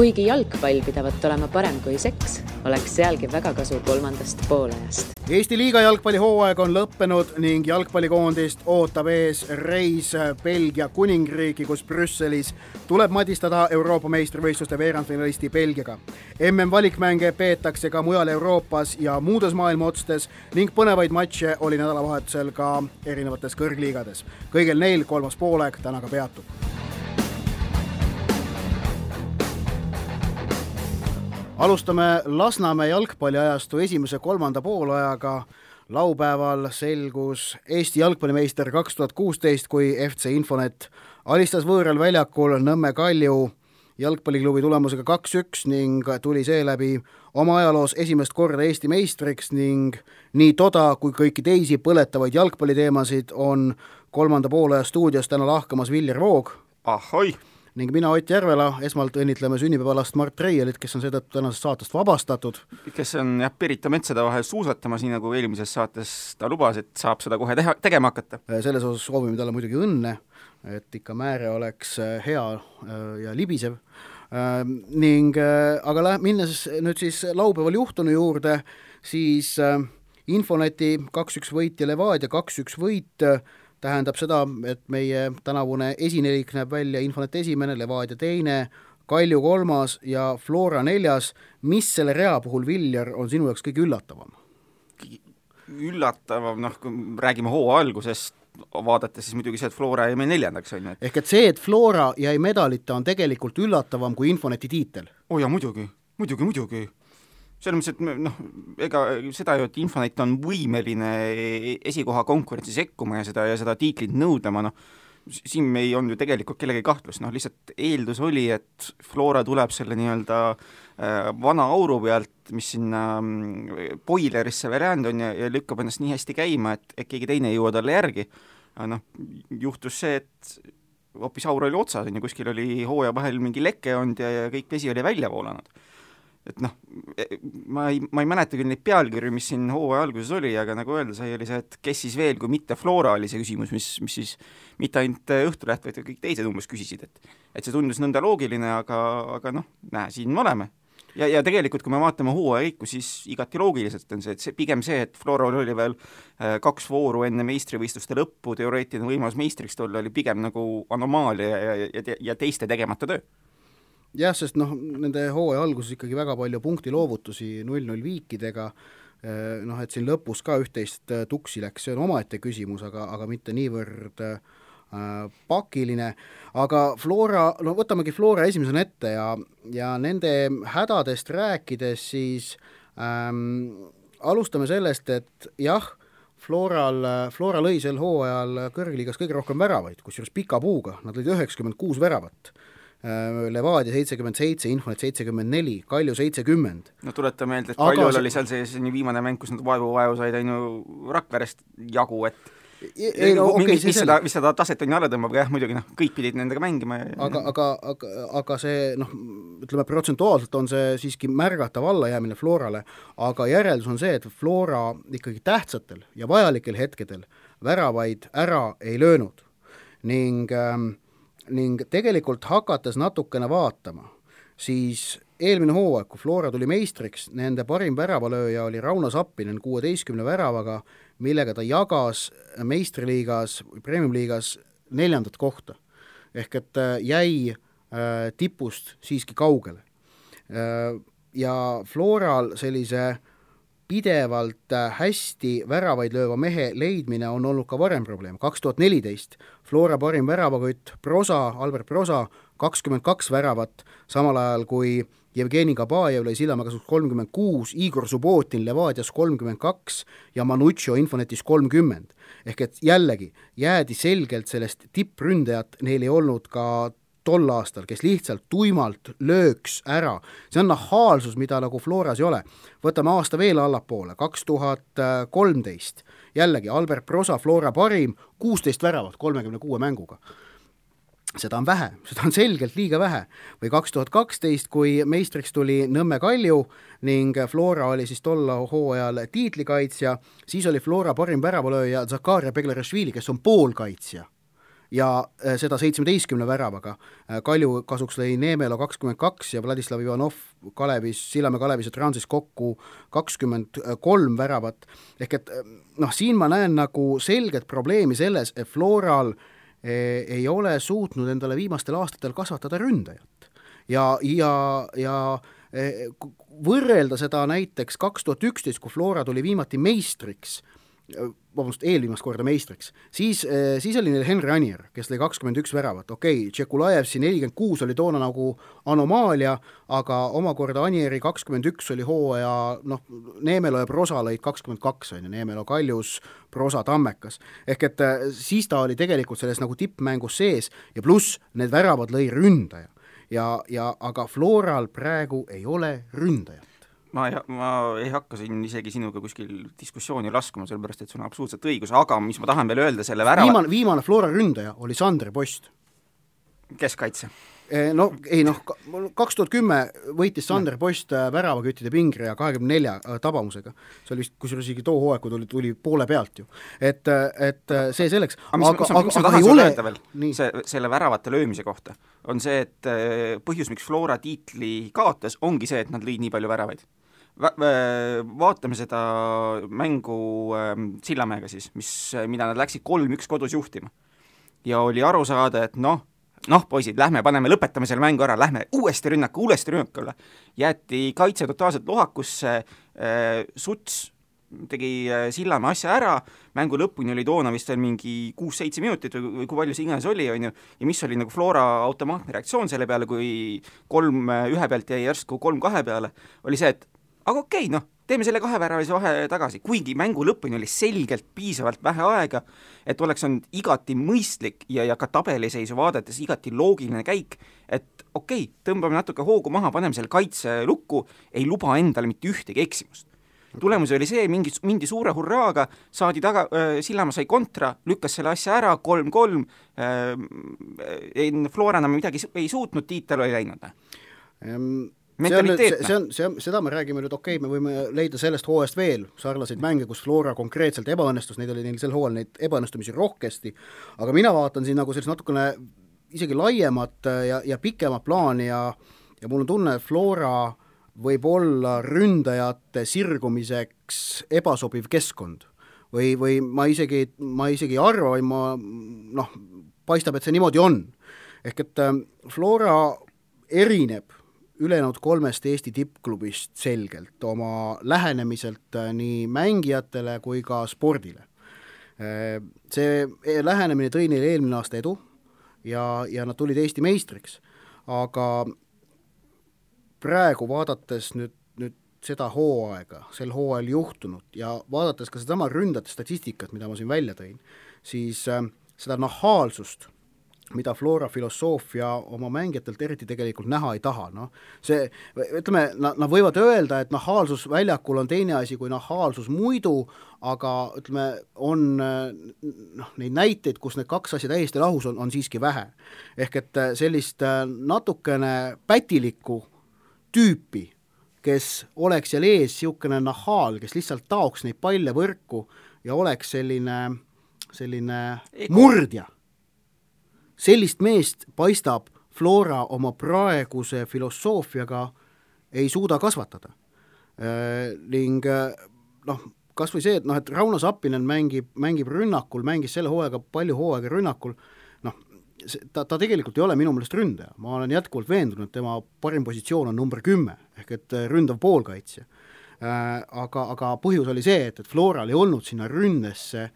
Kuigi jalgpall pidavat olema parem kui seks, oleks sealgi väga kasu kolmandast poolajast. Eesti liiga jalgpallihooaeg on lõppenud ning jalgpallikoondist ootab ees reis Belgia kuningriiki, kus Brüsselis tuleb madistada Euroopa meistrivõistluste veerandfinalisti Belgiaga. MM-valikmänge peetakse ka mujal Euroopas ja muudes maailma otstes ning põnevaid matše oli nädalavahetusel ka erinevates kõrgliigades. Kõigil neil kolmas poolaeg täna ka peatub. Alustame Lasnamäe jalgpalliajastu esimese kolmanda poolajaga. Laupäeval selgus Eesti jalgpallimeister 2016, kui FC Infonet alistas võõral väljakul Nõmme Kalju jalgpalliklubi tulemusega 2-1 ning tuli seeläbi oma ajaloos esimest korda Eesti meistriks ning nii toda kui kõiki teisi põletavaid jalgpalliteemasid on kolmanda poolaja stuudios täna lahkamas Viljar Voog. Ahoi! Ning mina Ott Järvela, esmalt õnnitleme sünnipäevalast Mart Reielit, kes on seetõttu tänasest saatest vabastatud. Kes on Pirita metsade vahel suusatamas, nii nagu eelmises saates ta lubas, et saab seda kohe tegema hakata. Selles osas soovime talle muidugi õnne, et ikka määre oleks hea ja libisev. Aga minnes nüüd siis laupäeval juhtunu juurde, siis Infoneti 2-1 võit ja Levadia 2-1 võit tähendab seda, et meie tänavune esinelik näeb välja Infonet esimene, Levadia teine, Kalju kolmas ja Flora neljas. Mis selle rea puhul, Viljar, on sinu jaoks kõige üllatavam? Üllatavam, kui räägime hooaja algusest, vaadates siis muidugi see, et Flora jäi meil neljandaks. Ehk et see, et Flora jäi medalita, on tegelikult üllatavam kui Infoneti tiitel? Ja muidugi. Selles mõttes, et ega seda ju, et Infonet on võimeline esikoha konkurentsi sekkuma ja seda tiitlit nõudlema, siin me ei olnud ju tegelikult kellegi kahtlus, lihtsalt eeldus oli, et Flora tuleb selle nii-öelda vana auru pealt, mis sinna Boilerisse veräänd on ja lükkab ennast nii hästi käima, et keegi teine ei jõua talle järgi. Juhtus see, et hoopis aur oli otsas ja kuskil oli hooaja vahel mingi leke olnud ja kõik vesi oli välja voolanud. Et ma ei mäleta küll neid pealkirju, mis siin hooaja alguses oli, aga nagu öelda sai, oli see, et kes siis veel, kui mitte Flora oli see küsimus, mis siis mitte ainult Õhtuleht, vaid kõik teised umbes küsisid, et see tundus nõnda loogiline, aga siin me oleme. Ja tegelikult, kui me vaatame hooaja kõiku, siis igati loogiliselt on see, pigem see, et Flora oli veel 2 vooru enne meistrivõistluste lõppu, teoreetiline võimalus meistriks tulla oli pigem nagu anomaalia ja teiste tegemata töö. Jah, sest nende hooaja alguses ikkagi väga palju punktiloovutusi 0-0 viikidega, et siin lõpus ka üht-teist tuksi läks, see on omaette küsimus, aga mitte niivõrd pakiline. Aga Flora, võtamegi Flora esimesena ette ja nende hädadest rääkides siis alustame sellest, et jah, Flora lõi sel hooajal kõrgliigas kõige rohkem väravaid, kusjuures pika puuga, nad lõid 96 väravat. Levadia 77, Infonet 74, Kalju 70. Tuleta meelde, et Kaljul oli seal see viimane mäng, kus nad vaevu said Rakverest jagu, et mis seda taset on alla tõmbab, jah, muidugi kõik pidid nendega mängima. Aga see, ütleme, protsentuaalselt on see siiski märgatav allajäämine Florale, aga järeldus on see, et Flora ikkagi tähtsatel ja vajalikel hetkedel väravaid ära ei löönud ning tegelikult hakates natukene vaatama, siis eelmine hooaeg, kui Flora tuli meistriks, nende parim väravalööja oli Rauno Sappinen 16 väravaga, millega ta jagas meistriliigas või premiumliigas 4. kohta. Ehk et jäi tipust siiski kaugele. Ja Floral sellise pidevalt hästi väravaid lööva mehe leidmine on olnud ka varem probleem. 2014 Flora parim väravakütt Albert Prosa 22 väravat, samal ajal kui Jevgeni Kabajev lõi Sillamäe 36, Igor Subbotin Levadias 32 ja Manuccio Infonetis 30. Ehk et jällegi jäädi selgelt sellest tippründajat, neil ei olnud ka tol aastal, kes lihtsalt tuimalt lööks ära. See on nahaalsus, mida nagu Floras ei ole. Võtame aasta veel allapoole, 2013. Jällegi Albert Prosa, Flora parim, 16 väravat 36 mänguga. Seda on vähe, seda on selgelt liiga vähe. Või 2012, kui meistriks tuli Nõmme Kalju ning Flora oli siis tolla hooajal tiitlikaitsja, siis oli Flora parim väravalööja Zakaria Beglerashvili, kes on poolkaitsja. ja seda 17 väravaga. Kalju kasuks lõi Neemelo 22 ja Vladislav Ivanov Sillamäe Kalevis ja Transis kokku 23 väravat. Ehk et siin ma näen nagu selget probleemi selles, et Floral ei ole suutnud endale viimastel aastatel kasvatada ründajat. Ja võrrelda seda näiteks 2011, kui Flora tuli viimati meistriks, eelviimast korda meistriks, siis oli neil Henri Anier, kes lõi 21 väravat. Tšekulajevsi 46 oli toona nagu anomaalia, aga omakorda Anieri 21 oli hooaja, Neemelo ja Prosa lõid 22, Neemelo Kaljus, Prosa Tammekas. Ehk et siis ta oli tegelikult selles nagu tippmängus sees ja pluss need väravad lõi ründaja. Aga Floral praegu ei ole ründajat. Ma ei hakka siin isegi sinuga kuskil diskussiooni laskuma, sellepärast, et sul on absoluutselt õigus, aga mis ma tahan veel öelda selle viimane Flora ründaja oli Sander Post. Keskkaitse. 2010 võitis Sander Post väravaküttide pingreja 24 tabamusega. See oli vist, kusjuures isegi too hooaeg, kui tuli poole pealt ju. Et see selleks. Mis ma tahan sulle öelda veel selle väravate löömise kohta, on see, et põhjus, miks Flora tiitli kaotas, ongi see, et nad lõid nii palju väravaid. Vaatame seda mängu Sillamäega siis, mida nad läksid 3-1 kodus juhtima. Ja oli aru saada, et poisid, lõpetame selle mängu ära, lähme uuesti rünnakule. Jäeti kaitse totaalselt lohakusse, Suts tegi Sillamäe asja ära, mängu lõpuni oli toona vist veel mingi 6-7 minutit või kui palju see iganes oli, on ju, ja mis oli nagu Flora automaatne reaktsioon selle peale, kui 3-1 pealt jäi järsku 3-2 peale, oli see, et aga teeme selle 2 väravalise vahe tagasi, kuigi mängu lõpuni oli selgelt piisavalt vähe aega, et oleks olnud igati mõistlik ja ka tabeliseisu vaadates igati loogiline käik, et tõmbame natuke hoogu maha, paneme selle kaitse lukku, ei luba endale mitte ühtegi eksimust. Tulemus oli see, mindi suure hurraaga, saadi taga, Sillamäe sai kontra, lükkas selle asja ära, 3-3, Flora enam midagi ei suutnud, tiitel oli läinud. Seda me räägime nüüd, me võime leida sellest hooajast veel sarnaseid mänge, kus Flora konkreetselt ebaõnnestus, neid oli neil sel hooajal neid ebaõnnestumisi rohkesti, aga mina vaatan siin nagu sellist natukene isegi laiemat ja pikemat plaani ja mul on tunne, et Flora võib olla ründajate sirgumiseks ebasobiv keskkond või ma isegi arva või paistab, et see niimoodi on. Ehk et Flora erineb ülejäänud 3 Eesti tippklubist selgelt oma lähenemiselt nii mängijatele kui ka spordile. See lähenemine tõi neile eelmine aasta edu ja nad tulid Eesti meistriks, aga praegu vaadates nüüd seda hooaega, sel hooajal juhtunut ja vaadates ka sedama ründajate statistikat, mida ma siin välja tõin, siis seda nahaalsust, mida Flora filosoofia oma mängijatelt eriti tegelikult näha ei taha. Nad võivad öelda, et nahaalsus väljakul on teine asi kui nahaalsus muidu, aga on neid näiteid, kus need 2 asja täiesti lahus on siiski vähe. Ehk et sellist natukene pätilikku tüüpi, kes oleks seal ees siukene nahaal, kes lihtsalt taoks neid palle võrku ja oleks selline murdja. Sellist meest paistab Flora oma praeguse filosoofiaga ei suuda kasvatada. Ning kas või see, et Rauno Sappinen mängib rünnakul, mängis selle hooaega palju hooaega rünnakul, ta tegelikult ei ole minu meelest ründaja. Ma olen jätkuvalt veendunud, et tema parim positsioon on number 10, ehk et ründav poolkaitsja. Aga põhjus oli see, et Floral ei olnud sinna ründesse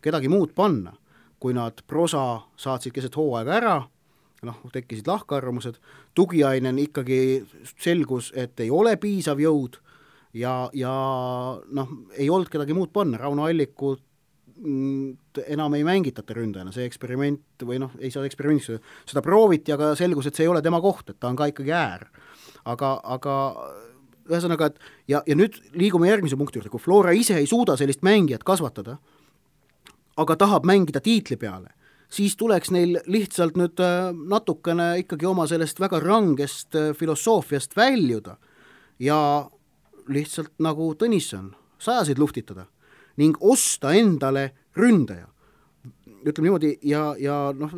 kedagi muud panna. Kui nad Prosa saatsid keset hooaega ära, tekkisid lahkarvamused, Tugiainen ikkagi selgus, et ei ole piisav jõud ja ei olnud kedagi muud panna, Rauno Allikut enam ei mängitata ründajana, see eksperiment või ei saa eksperimendiks, seda prooviti, aga selgus, et see ei ole tema koht, et ta on ka ikkagi äär. Aga ühesõnaga, ja nüüd liigume järgmise punkti juurde, kui Flora ise ei suuda sellist mängijat kasvatada, aga tahab mängida tiitli peale, siis tuleks neil lihtsalt nüüd natukene ikkagi oma sellest väga rangest filosoofiast väljuda ja lihtsalt nagu Tõnisson, 100 luftitada ning osta endale ründaja. ütleme niimoodi, ja noh,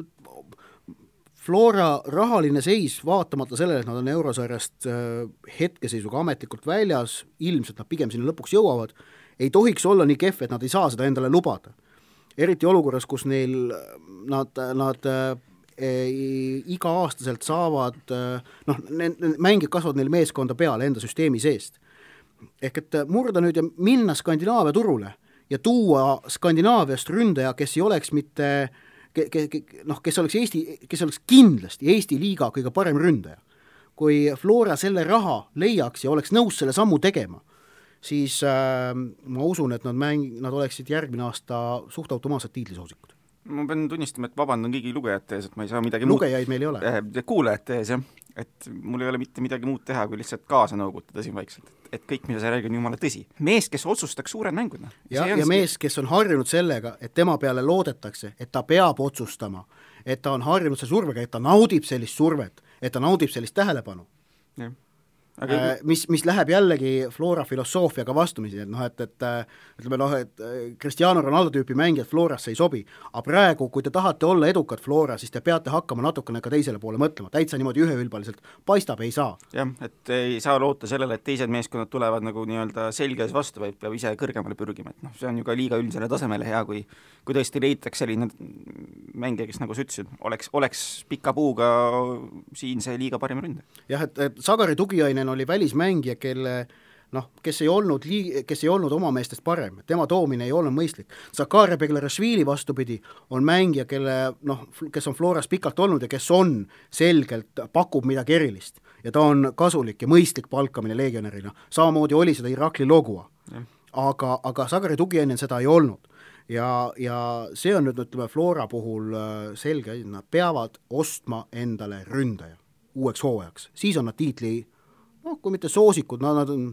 Flora rahaline seis, vaatamata sellele, et nad on eurosarjast hetkeseisuga ametlikult väljas, ilmselt nad pigem sinna lõpuks jõuavad, ei tohiks olla nii kehv, et nad ei saa seda endale lubada. Eriti olukorras, kus neil nad iga-aastaselt saavad, noh, mängid kasvavad neil meeskonda peale enda süsteemi seest. Ehk et murda nüüd ja minna Skandinaavia turule ja tuua Skandinaaviast ründaja, kes ei oleks mitte kes oleks kindlasti Eesti liiga kõige parem ründaja. Kui Flora selle raha leiaks ja oleks nõus selle sammu tegema, siis ma usun, et nad oleksid järgmine aasta suht automaatselt tiitlisoosikud. Ma pean tunnistama, et vabandan kõigi lugejate ees, et ma ei saa midagi lugejaid meil ei ole. Kuulajate ees, jah. Et mul ei ole mitte midagi muud teha, kui lihtsalt kaasa nõugutada siin vaikselt. Et kõik, mida sa räägid, on jumala tõsi. Mees, kes otsustaks suured mängud. Ja mees, kes on harjunud sellega, et tema peale loodetakse, et ta peab otsustama, et ta on harjunud see survega, et ta naudib sellist survet, et ta naudib sellist tähelepanu. Jah. Mis läheb jällegi Flora filosoofiaga vastumisi, et ütleme, et Cristiano Ronaldo tüüpi mängijad Florasse ei sobi, aga praegu, kui te tahate olla edukad Flora, siis te peate hakkama natukene ka teisele poole mõtlema, täitsa niimoodi üheülbaliselt paistab, ei saa. Jah, et ei saa loota sellele, et teised meeskonnad tulevad nagu nii-öelda selges vastu, vaid peab ise kõrgemale pürgima, et see on ju ka liiga üldisele tasemele hea, kui tõesti leitaks selline mängija, kes nagu sa ütlesid, oleks pika puuga siin see liiga parim ründe. Jah, et Sagari Tugiainen oli välismängija, kes ei olnud oma meestest parem, tema toomine ei olnud mõistlik. Zakaria Beglarashvili vastupidi on mängija, kes on Floras pikalt olnud ja kes on selgelt, pakub midagi erilist ja ta on kasulik ja mõistlik palkamine legionärina. Samamoodi oli seda Irakli Logua, aga Sagari Tugiainen seda ei olnud. Ja see on nüüd, ütleme, Flora puhul selge, nad peavad ostma endale ründaja uueks hooajaks. Siis on nad tiitli, kui mitte soosikud, nad on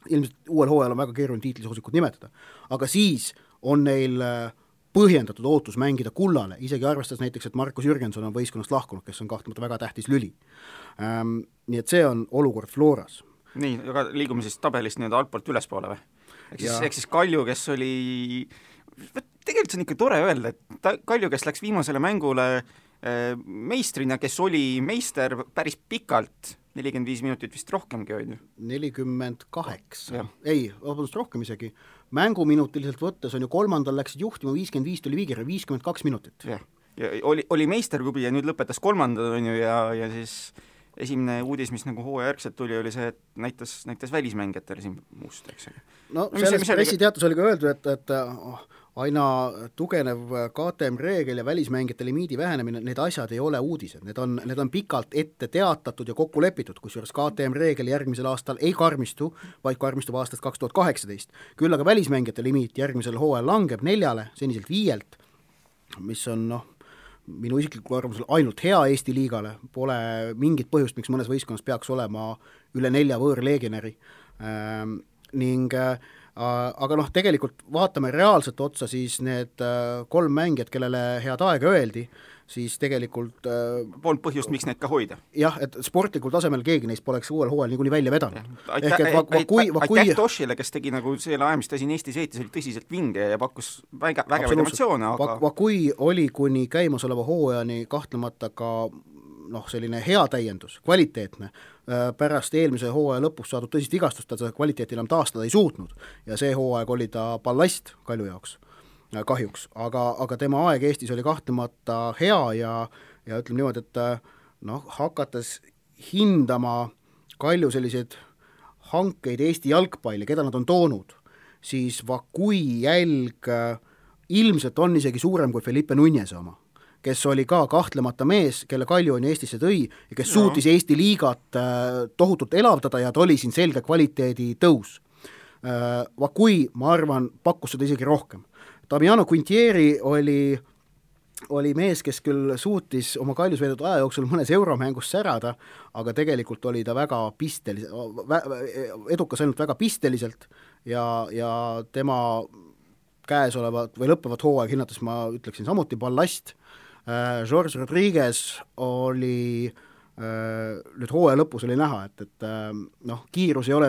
ilmselt uuel hooajal on väga keeruline tiitlisoosikud nimetada, aga siis on neil põhjendatud ootus mängida kullale, isegi arvestades näiteks, et Markus Jürgenson on võistkonnast lahkunud, kes on kahtlemata väga tähtis lüli. Nii et see on olukord Floras. Nii, aga liigume siis tabelist nii-öelda altpoolt ülespoole või? Ehk siis Kalju, kes oli tegelikult see on ikka tore öelda, et Kalju, kes läks viimasele mängule meistrina, kes oli meister päris pikalt, 45 minutit vist rohkemgi oli. 48. Ei, vabandust, rohkem isegi. Mänguminutiliselt võttes on ju kolmandal läksid juhtima, 55 tuli viigire, 52 minutit. Ja oli meisterklubi ja nüüd lõpetas kolmandad on ju ja siis esimene uudis, mis nagu hooajärgselt tuli, oli see, et näitas välismängijatele siin muust, eks. No selles pressiteatus oli ka öeldud, et aina tugenev KTM reegel ja välismängijate limiidi vähenemine, need asjad ei ole uudised, need on pikalt ette teatatud ja kokku lepitud, kusjuures KTM reegel järgmisel aastal ei karmistu, vaid karmistub aastast 2018. Küll aga välismängijate limiit järgmisel hooajal langeb 4, seniselt 5, mis on minu isikliku arvamusel ainult hea Eesti liigale, pole mingit põhjust, miks mõnes võistkonnas peaks olema üle 4 võõrlegionäri aga tegelikult vaatame reaalselt otsa, siis need 3 mängijad, kellele head aega öeldi, siis tegelikult polnud põhjust, miks neid ka hoida. Jah, et sportlikul tasemel keegi neist poleks uuel hooajal niikuinii välja vedanud. Aitäh Toshile, kes tegi nagu selle aja, mis ta siin Eestis veetis, oli tõsiselt vinge ja pakkus vägevaid emotsioone, aga kui oli kuni käimasoleva hooajani kahtlemata ka selline hea täiendus, kvaliteetne, pärast eelmise hooaja lõpus saadud tõsist vigastust, ta seda kvaliteeti enam taastada ei suutnud ja see hooaeg oli ta ballast Kalju jaoks, kahjuks, aga tema aeg Eestis oli kahtlemata hea ja ütleme niimoodi, et hakates hindama Kalju selliseid hankeid Eesti jalgpalli, keda nad on toonud, siis Vakui jälg ilmselt on isegi suurem kui Felipe Nunez oma, kes oli ka kahtlemata mees, kelle Kalju on Eestisse tõi ja kes suutis Eesti liigat tohutult elavdada ja ta oli siin selge kvaliteedi tõus. Vakui, ma arvan, pakkus seda isegi rohkem. Damiano Quintieri oli mees, kes küll suutis oma Kaljus veetud aja jooksul mõnes euromängus särada, aga tegelikult oli ta väga edukas ainult väga pisteliselt ja tema käesolevat või lõppevat hooaeg hinnates ma ütleksin samuti ballast. George Rodriguez oli nüüd hooaja lõpus oli näha, et kiirus ei ole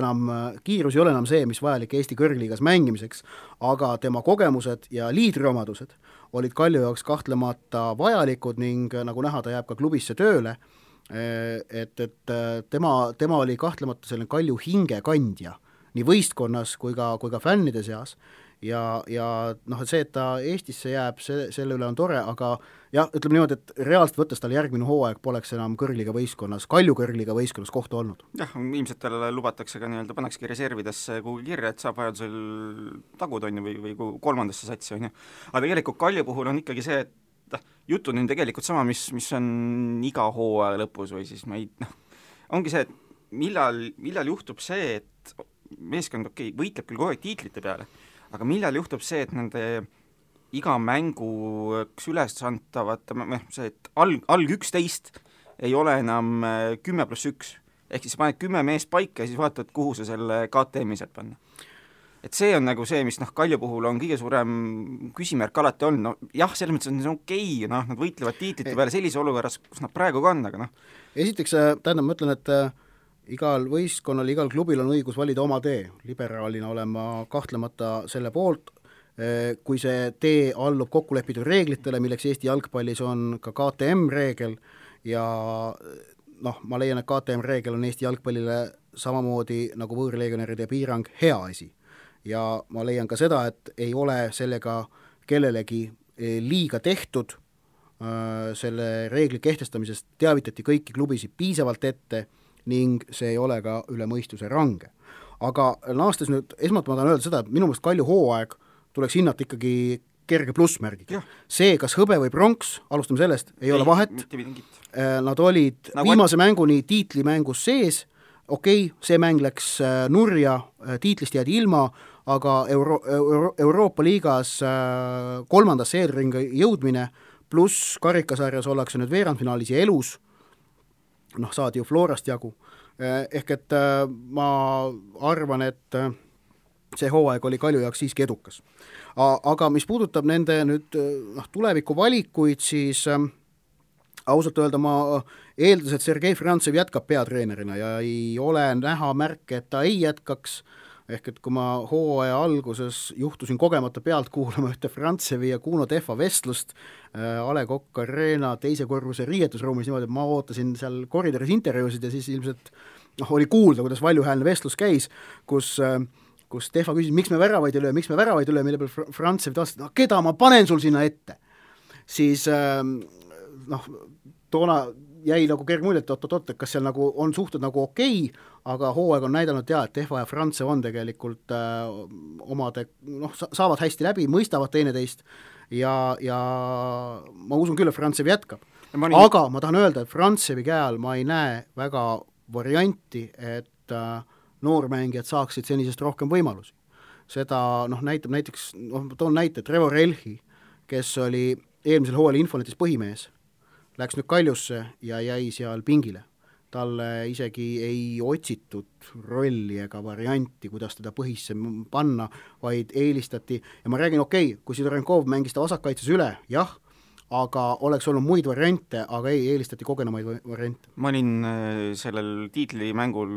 enam see, mis vajalik Eesti kõrgliigas mängimiseks, aga tema kogemused ja liidriomadused olid Kalju jaoks kahtlemata vajalikud ning nagu näha, ta jääb ka klubisse tööle, et tema oli kahtlemata selline Kalju hingekandja nii võistkonnas kui ka fännide seas ja noh, et see, et ta Eestisse jääb, selle üle on tore, aga jah, ütleme niimoodi, et reaalselt võttes tal järgmine hooaeg poleks enam kõrgliga võistkonnas, Kalju kõrgliga võistkonnas kohta olnud. Jah, ilmselt talle lubatakse ka nii-öelda, pannakski reservidesse kuhugi kirja, et saab vajadusel tagud on ju, või kolmandasse satsi on ju. Aga tegelikult Kalju puhul on ikkagi see, et jutud on tegelikult sama, mis on iga hooaja lõpus või siis ongi see, et millal juhtub see, et meeskond võitleb küll kogu aeg tiitlite peale, aga millal juhtub see, et nende iga mängu ülesantavad, see, et alg 11 ei ole enam 10+1, ehk siis paned 10 meest paika ja siis vaatad, kuhu sa selle KTM-i sealt panna. Et see on nagu see, mis Kalju puhul on kõige suurem küsimärk alati on, jah, selles mõttes on see okei, nad võitlevad tiitlite peale sellise olukorras, kus nad praegu ka on, aga Esiteks, tähendab, ma ütlen, et igal võistkonnal, igal klubil on õigus valida oma tee. Liberaalina olen ma kahtlemata selle poolt, kui see tee allub kokkulepitud reeglitele, milleks Eesti jalgpallis on ka KTM-reegel ja ma leian, et KTM-reegel on Eesti jalgpallile samamoodi nagu võõrlegionäride piirang hea asi. Ja ma leian ka seda, et ei ole sellega kellelegi liiga tehtud, selle reegli kehtestamisest teavitati kõiki klubisid piisavalt ette ning see ei ole ka üle mõistuse range. Aga naastes nüüd, esmalt ma tahan öelda seda, et minu meelest Kalju hooaeg tuleks hinnata ikkagi kerge plussmärgiga. See, kas hõbe või pronks, alustame sellest, ei ole vahet. Nad olid viimase mänguni tiitlimängus sees, okei, see mäng läks nurja, tiitlist jäädi ilma, aga Euroopa liigas kolmandasse eelringa jõudmine pluss karikasarjas ollakse nüüd veerandfinaalis ja elus, saadi ju Florast jagu. Ehk et ma arvan, et see hooaeg oli Kalju jaoks siiski edukas. Aga mis puudutab nende nüüd tuleviku valikuid, siis ausalt öelda ma eeldas, et Sergei Frantsev jätkab peatreenerina ja ei ole näha märke, et ta ei jätkaks, ehk et kui ma hooaja alguses juhtusin kogemata pealt kuulama ühte Frantsevi ja Kuno Tehva vestlust A. Le Coq Arena teise korruse riietusruumis niimoodi, et ma ootasin seal koridoris intervjuusid ja siis ilmselt oli kuulda, kuidas valjuhäälne vestlus käis, kus Tehva küsis, miks me väravaid ei löö, mille peal Frantsev taas, keda ma panen sul sinna ette? Siis toona jäi nagu kerg mulje, et kas seal nagu on suhted nagu okei, aga hooaeg on näidanud et Tehva ja Frantsev on tegelikult saavad hästi läbi, mõistavad teineteist ja ma usun küll, et Frantsev jätkab. Aga ma tahan öelda, et Frantsevi käe all ma ei näe väga varianti, et noormängijad saaksid senisest rohkem võimalusi. Seda näitab näiteks, toon näite, Trevor Elhi, kes oli eelmisel hooajal Infonetis põhimees, läks nüüd Kaljusse ja jäi seal pingile. Talle isegi ei otsitud rolli ega varianti, kuidas teda põhisse panna, vaid eelistati, ja ma räägin, kui Sidorenkov mängis ta vasakkaitses üle, jah, aga oleks olnud muid variante, aga eelistati kogenemaid variante. Ma olin sellel tiitlimängul,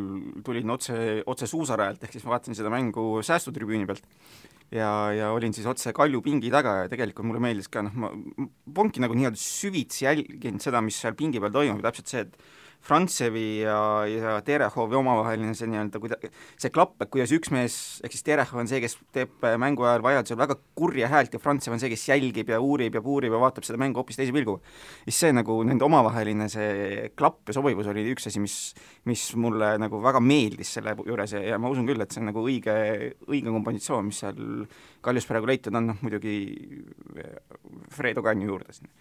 tulin otse suusarajalt, ehk siis ma vaatasin seda mängu säästutribüüni pealt ja olin siis otse Kalju pingi taga ja tegelikult mulle meeldis ka, ma ponki nagu nii-öelda süvitsi jälginud seda, mis seal pingi peal toimub, täpselt see, et Frantsevi ja Terehovi omavaheline see klapp, et kuidas üks mees, ehk siis Terehov on see, kes teeb mängu ajal vajadusel väga kurja häält ja Frantsev on see, kes jälgib ja uurib ja puurib ja vaatab seda mängu hoopis teise pilguga. Siis see nagu nende omavaheline see klapp ja sobivus oli üks asi, mis mulle nagu väga meeldis selle juures ja ma usun küll, et see on nagu õige kompositsioon, mis seal Kaljus praegu leitud on, muidugi Fredo Kanju juurde siin.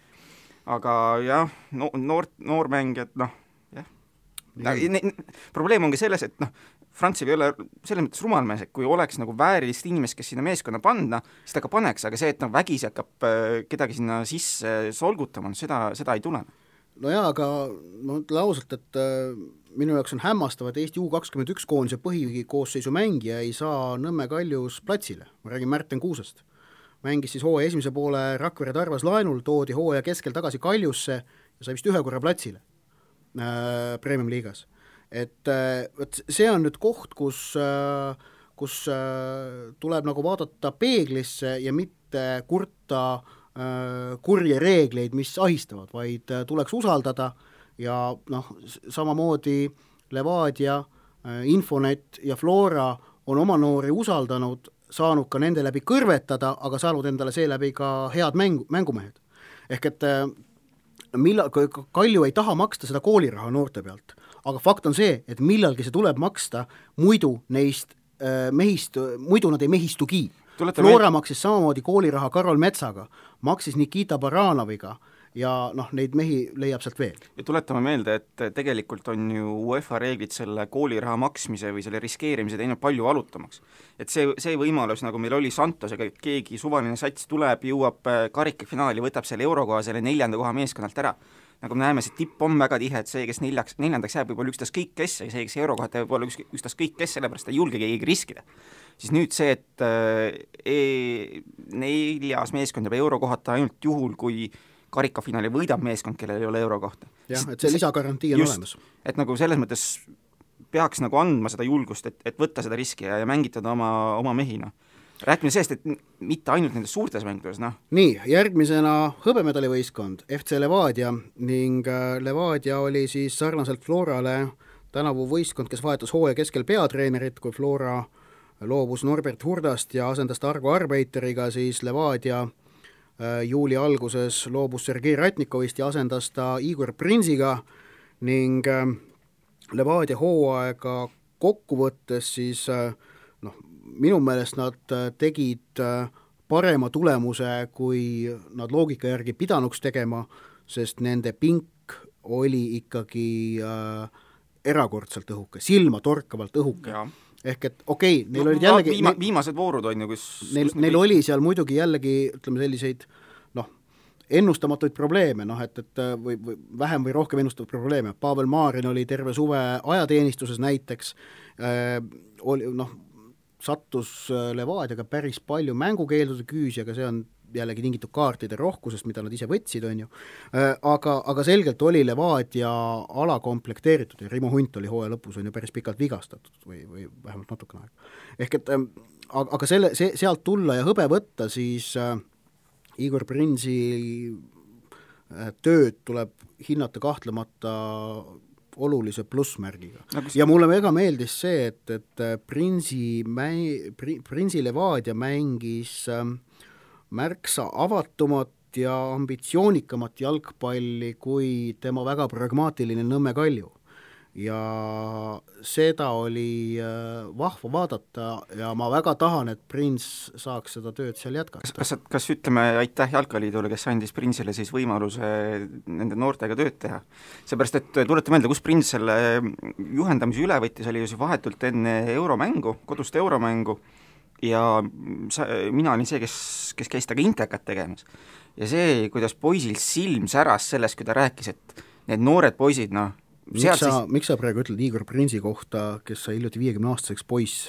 Aga jah, noormängijad, probleem on ka selles, et Frantsev ei ole selles mõttes rumalmees, et kui oleks nagu väärilist inimest, kes sinna meeskonna panna, siis ta ka paneks, aga see, et vägisi hakkab kedagi sinna sisse solgutama, seda ei tule. Nojaa, aga ma ütlen ausalt, et minu jaoks on hämmastav, et Eesti U21 koondise põhikoosseisu mängija ei saa Nõmme Kaljus platsile. Ma räägin Märten Kuusest. Mängis siis hooaja esimese poole Rakvere Tarvas laenul, toodi hooaja keskel tagasi Kaljusse ja sai vist ühe korra platsile Premium liigas. Et see on nüüd koht, kus tuleb nagu vaadata peeglisse ja mitte kurta kurje reegleid, mis ahistavad, vaid tuleks usaldada ja noh, samamoodi Levadia, Infonet ja Flora on oma noori usaldanud, saanud ka nende läbi kõrvetada, aga saanud endale seeläbi ka head mängumehed. Ehk et Kalju ei taha maksta seda kooliraha noorte pealt, aga fakt on see, et millalgi see tuleb maksta, muidu neist muidu nad ei mehistugi. Flora maksis samamoodi kooliraha Karol Metsaga, maksis Nikita Baranoviga ja noh, neid mehi leiab sealt veel. Ja tuletame meelde, et tegelikult on ju UEFA reeglid selle kooliraha maksmise või selle riskeerimise teinud palju valutamaks. Et see võimalus, nagu meil oli Santosega, et keegi suvaline sats tuleb, jõuab karikafinaali, võtab selle eurokoha selle 4. koha meeskonnalt ära. Nagu me näeme, see tipp on väga tihe, et see, kes 4. jääb, võib olla ükstaskõik kes, ja see, kes eurokohad võib olla ükstaskõik kes, sellepärast ei julge keegi riskida. Siis nüüd see, et 4. meeskond jääb eurokohata ainult juhul, kui karikafinaali võidab meeskond, kellel ei ole eurokohta. Jah, et see lisagarantii on olemas. Et nagu selles mõttes peaks nagu andma seda julgust, et võtta seda riski ja mängitada oma mehi, noh. Rääkime sellest, et mitte ainult nendes suurtes mängudes, noh. Nii, järgmisena hõbemedalivõistkond, FC Levadia ning Levadia oli siis sarnaselt Florale tänavu võistkond, kes vahetas hooaja keskel peatreenerit, kui Flora loobus Norbert Hurdast ja asendas Targo Arbeiteriga, siis Levadia juuli alguses loobus Sergei Ratnikovist ja asendas ta Igor Prinsiga ning Levadia hooaega kokkuvõttes siis noh, minu meelest nad tegid parema tulemuse, kui nad loogika järgi pidanuks tegema, sest nende pink oli ikkagi erakordselt õhuke, silma torkavalt õhuke. Ja. Ehk et okei, neil olid jällegi viimased voorud on ju, kus neil oli seal muidugi jällegi, ütleme selliseid ennustamatuid probleeme, et või vähem või rohkem ennustavaid probleeme. Pavel Marin oli terve suve ajateenistuses näiteks, sattus Levadiaga päris palju mängukeeldude küüsi, aga see on jällegi tingitud kaartide rohkusest, mida nad ise võtsid, on ju. Aga selgelt oli Levadia alakomplekteeritud ja Rimo Hunt oli hooaja lõpus on ju päris pikalt vigastatud või vähemalt natukene aega. Ehk et aga sealt tulla ja hõbe võtta, siis Igor Prinsi tööd tuleb hinnata kahtlemata olulise plussmärgiga. Ja mulle väga meeldis see, et Prinsi Levadia mängis märksa avatumat ja ambitsioonikamat jalgpalli kui tema väga pragmaatiline Nõmme Kalju. Ja seda oli vahva vaadata ja ma väga tahan, et Prins saaks seda tööd seal jätkata. Kas ütleme aitäh Jalkaliidule, kes andis Prinsile siis võimaluse nende noortega tööd teha? Seepärast, et tulete meelde, kus Prins selle juhendamise üle võttis, oli ju vahetult enne euromängu, kodust euromängu, ja mina olin see, kes käis taga intekat tegemas. Ja see, kuidas poisil silm säras sellest, kui ta rääkis, et need noored poisid, Miks sa praegu ütled Igor Prinsi kohta, kes sai hiljuti 50-aastaseks poiss?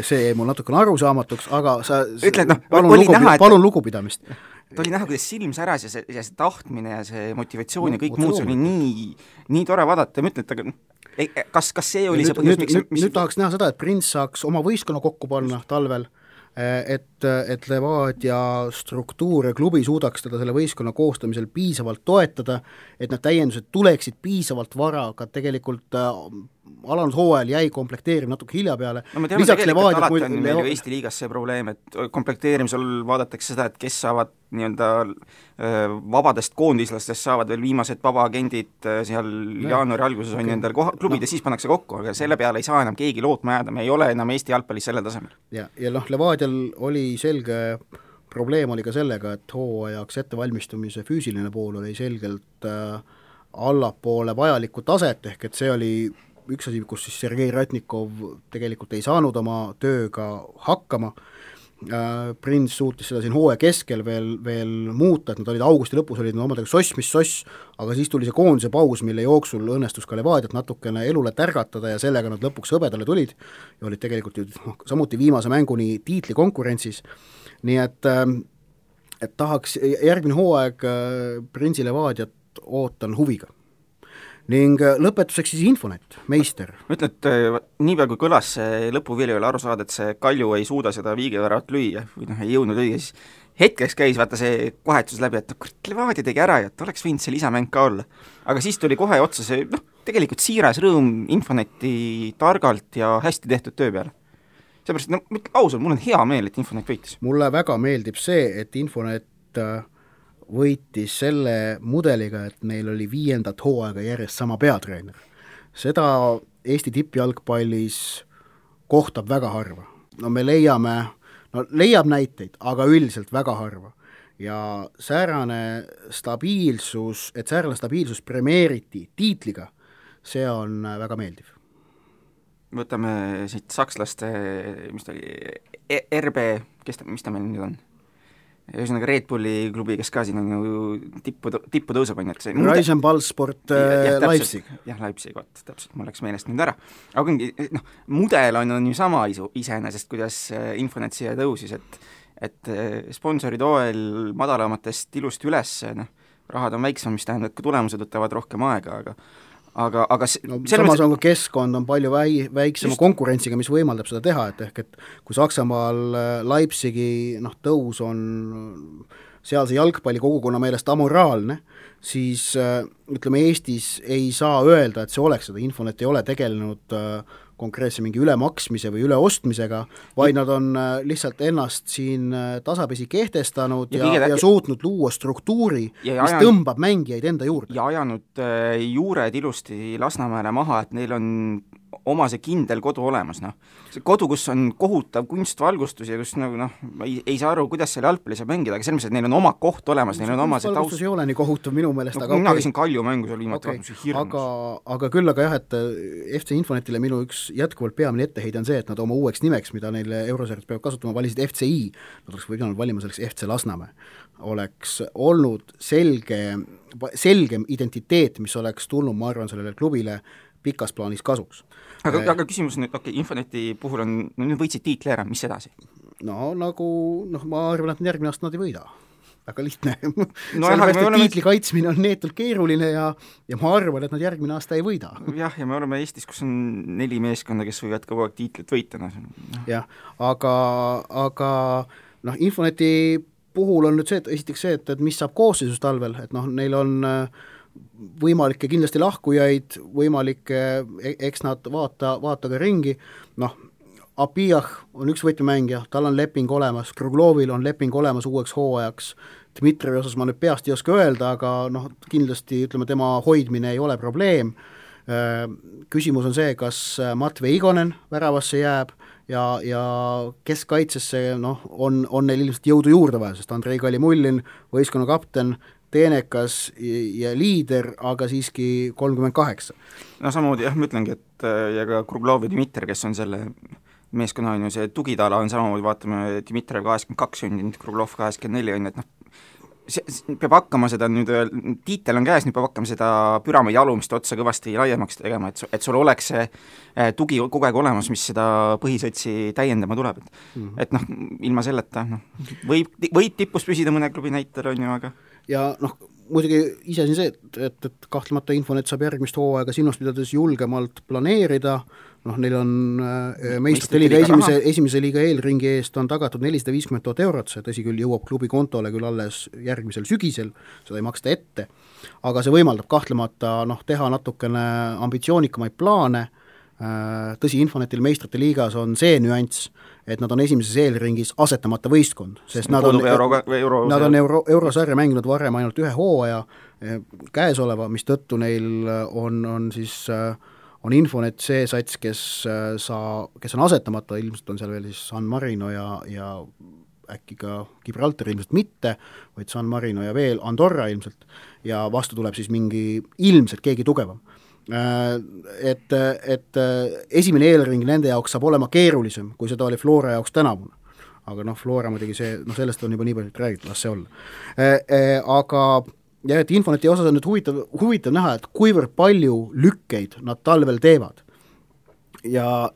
See mul natukene arusaamatuks, aga sa ütled, palun lugupidamist. Ta oli näha, kuidas silm säras ja see tahtmine ja see motivatsioon ja kõik muud, see oli nii tore vaadata ja ma ütlen, et kas see oli see põhjus, miks... Nüüd tahaks näha seda, et Prins saaks oma võistkonna kokku panna talvel, et Levadia struktuur ja klubi suudaks teda selle võistkonna koostamisel piisavalt toetada, et need täiendused tuleksid piisavalt vara, aga tegelikult alanud hooajal jäi komplekteerim natuke hilja peale. Me teame tegelikult alati on meil ju Eesti liigas see probleem, et komplekteerimisel vaadatakse seda, et kes saavad nii-öelda vabadest koondislastest saavad veel viimased vabaagendid seal jaanuari alguses on endal klubid ja siis pannakse kokku, aga selle peale ei saa enam keegi lootma jääda, me ei ole enam Eesti jalgpallis sellel tasemel. Ja Levadial oli selge probleem oli ka sellega, et hooajaks ettevalmistumise füüsiline pool oli selgelt allapoole vajalikku taset, ehk et see oli üks asi, kus siis Sergei Ratnikov tegelikult ei saanud oma tööga hakkama. Prins suutis seda siin hooaja keskel veel muuta, et nad olid augusti lõpus, olid omadega soss, aga siis tuli see koondise paus, mille jooksul õnnestus ka Levadiat natukene elule tärgatada ja sellega nad lõpuks hõbedale tulid ja olid tegelikult ju samuti viimase mänguni tiitlikonkurentsis. Nii et tahaks järgmine hooaeg Prinsi Levadiat ootan huviga. Ning lõpetuseks siis Infonet, meister. Ma ütlen, et nii peal kui kõlas see lõpuvili oli aru saada, et see Kalju ei suuda seda viigeväravat lüüa või ei jõudnud õige, siis hetkeks käis vaata see kohetus läbi, et Levadia tegi ära ja et oleks võinud see lisamäng ka olla. Aga siis tuli kohe otsa see, tegelikult siiras rõõm Infoneti targalt ja hästi tehtud töö peale. Seepärast, ausalt, mul on hea meel, et Infonet võitis. Mulle väga meeldib see, et Infonet võitis selle mudeliga, et neil oli 5. hooaega järjest sama peatreener. Seda Eesti tippjalgpallis kohtab väga harva. No me leiab näiteid, aga üldiselt väga harva. Ja säärane stabiilsus premeeriti tiitliga, see on väga meeldiv. Võtame siit sakslaste, mis ta oli, RB, mis ta meil nüüd on? Ühesõnaga Red Bulli klubi, kes ka siin on ju tippu tõuseb, on ju. Reisenballsport Leipzig. Jah, Leipzig, täpselt, mul läks meelest nüüd ära. Aga mudel on ju sama iseenesest, kuidas Infonet siia tõusis, et sponsorid OL madalamatest ilusti üles, rahad on väiksem, mis tähendab, et ka tulemused võtavad rohkem aega, aga samas on ka keskkond on palju väiksema konkurentsiga, mis võimaldab seda teha, et kui Saksamaal Leipzigi tõus on sealse jalgpalli kogukonna meelest amoraalne, siis ütleme, Eestis ei saa öelda, et see oleks seda. Infonet ei ole tegelenud konkreetse mingi ülemaksmise või üleostmisega, vaid nad on lihtsalt ennast siin tasapisi kehtestanud ja suutnud luua struktuuri, mis tõmbab mängijaid enda juurde. Ja ajanud juured ilusti Lasnamäele maha, et neil on oma see kindel kodu olemas, See kodu, kus on kohutav kunstvalgustus ja kus ei saa aru, kuidas seal jalgpalli saab mängida, aga selles mõttes, et neil on oma koht olemas, neil on oma see taust. Valgustus ei ole nii kohutav minu meelest, aga mina käisin Kalju mängu seal viimati hirmus. Aga küll aga jah, et FC Infonetile minu üks jätkuvalt peamine etteheide on see, et nad oma uueks nimeks, mida neile Eurosarjas peavad kasutama, valisid FCI, nad oleks võinud valima selleks FC Lasnamäe. Oleks olnud selgem identiteet, mis oleks tulnud, ma arvan, sellele klubile pikas plaanis kasuks. Aga küsimus nüüd, Infoneti puhul on, nüüd võitsid tiitli ära, mis edasi? Ma arvan, et järgmine aasta nad ei võida. Väga lihtne. Sellepärast, et tiitli kaitsmine on neetult keeruline ja ma arvan, et nad järgmine aasta ei võida. Jah, ja me oleme Eestis, kus on 4 meeskonda, kes võivad kogu aeg tiitlit võita. Jah, aga Infoneti puhul on nüüd see, et esiteks see, et mis saab koosseisus talvel, et neil on võimalikke kindlasti lahkujaid, võimalikke, eks nad vaata ka ringi, Apijah on üks võtmemängija, tal on leping olemas, Kruglovil on leping olemas uueks hooajaks, Dmitrivi osas ma nüüd peast ei oska öelda, aga kindlasti ütleme, tema hoidmine ei ole probleem. Küsimus on see, kas Matvei Igonen väravasse jääb ja keskkaitsesse on neil ilmselt jõudu juurde vaja, sest Andrei Kalimullin, võistkonna kapten, teenekas ja liider, aga siiski 38. Samamoodi jah, ma ütlengi, et ja ka Kruglov ja Dmitri, kes on selle meeskonna on ju see tugitala on samamoodi, vaatame Dmitri 82 sündinud, Kruglov 84 on, et peab hakkama seda nüüd, tiitel on käes, nüüd peab hakkama seda püramiidi alumist otsa kõvasti laiemaks tegema, et sul oleks see tugi kogu aeg olemas, mis seda põhisõtsi täiendama tuleb. Et ilma selleta võib tippus püsida mõne klubi näitel, on ju, aga ja muidugi ise siin see, et kahtlemata Infonet saab järgmist hooaega silmas pidades julgemalt planeerida, neil on meistrite liiga esimese liiga eelringi eest on tagatud 450 000 eurot, see tõsi küll jõuab klubi kontole küll alles järgmisel sügisel, seda ei maksta ette, aga see võimaldab kahtlemata teha natukene ambitsioonikamaid plaane. Tõsi, Infonetil meistrite liigas on see nüanss, et nad on esimeses eelringis asetamata võistkond, sest nad on eurosarja mänginud varem ainult ühe hooaja käesoleva, mis tõttu neil on Infonet see sats, kes on asetamata, ilmselt on seal veel siis San Marino ja äkki ka Gibraltar ilmselt mitte, vaid San Marino ja veel Andorra ilmselt ja vastu tuleb siis mingi ilmselt keegi tugevam. Et esimene eelring nende jaoks saab olema keerulisem, kui seda oli Flora jaoks tänavune. Aga Flora muidugi see, sellest on juba nii palju räägitud, las see olla. Aga ja et Infoneti osas on nüüd huvitav näha, et kuivõrd palju lükkeid nad talvel teevad. Ja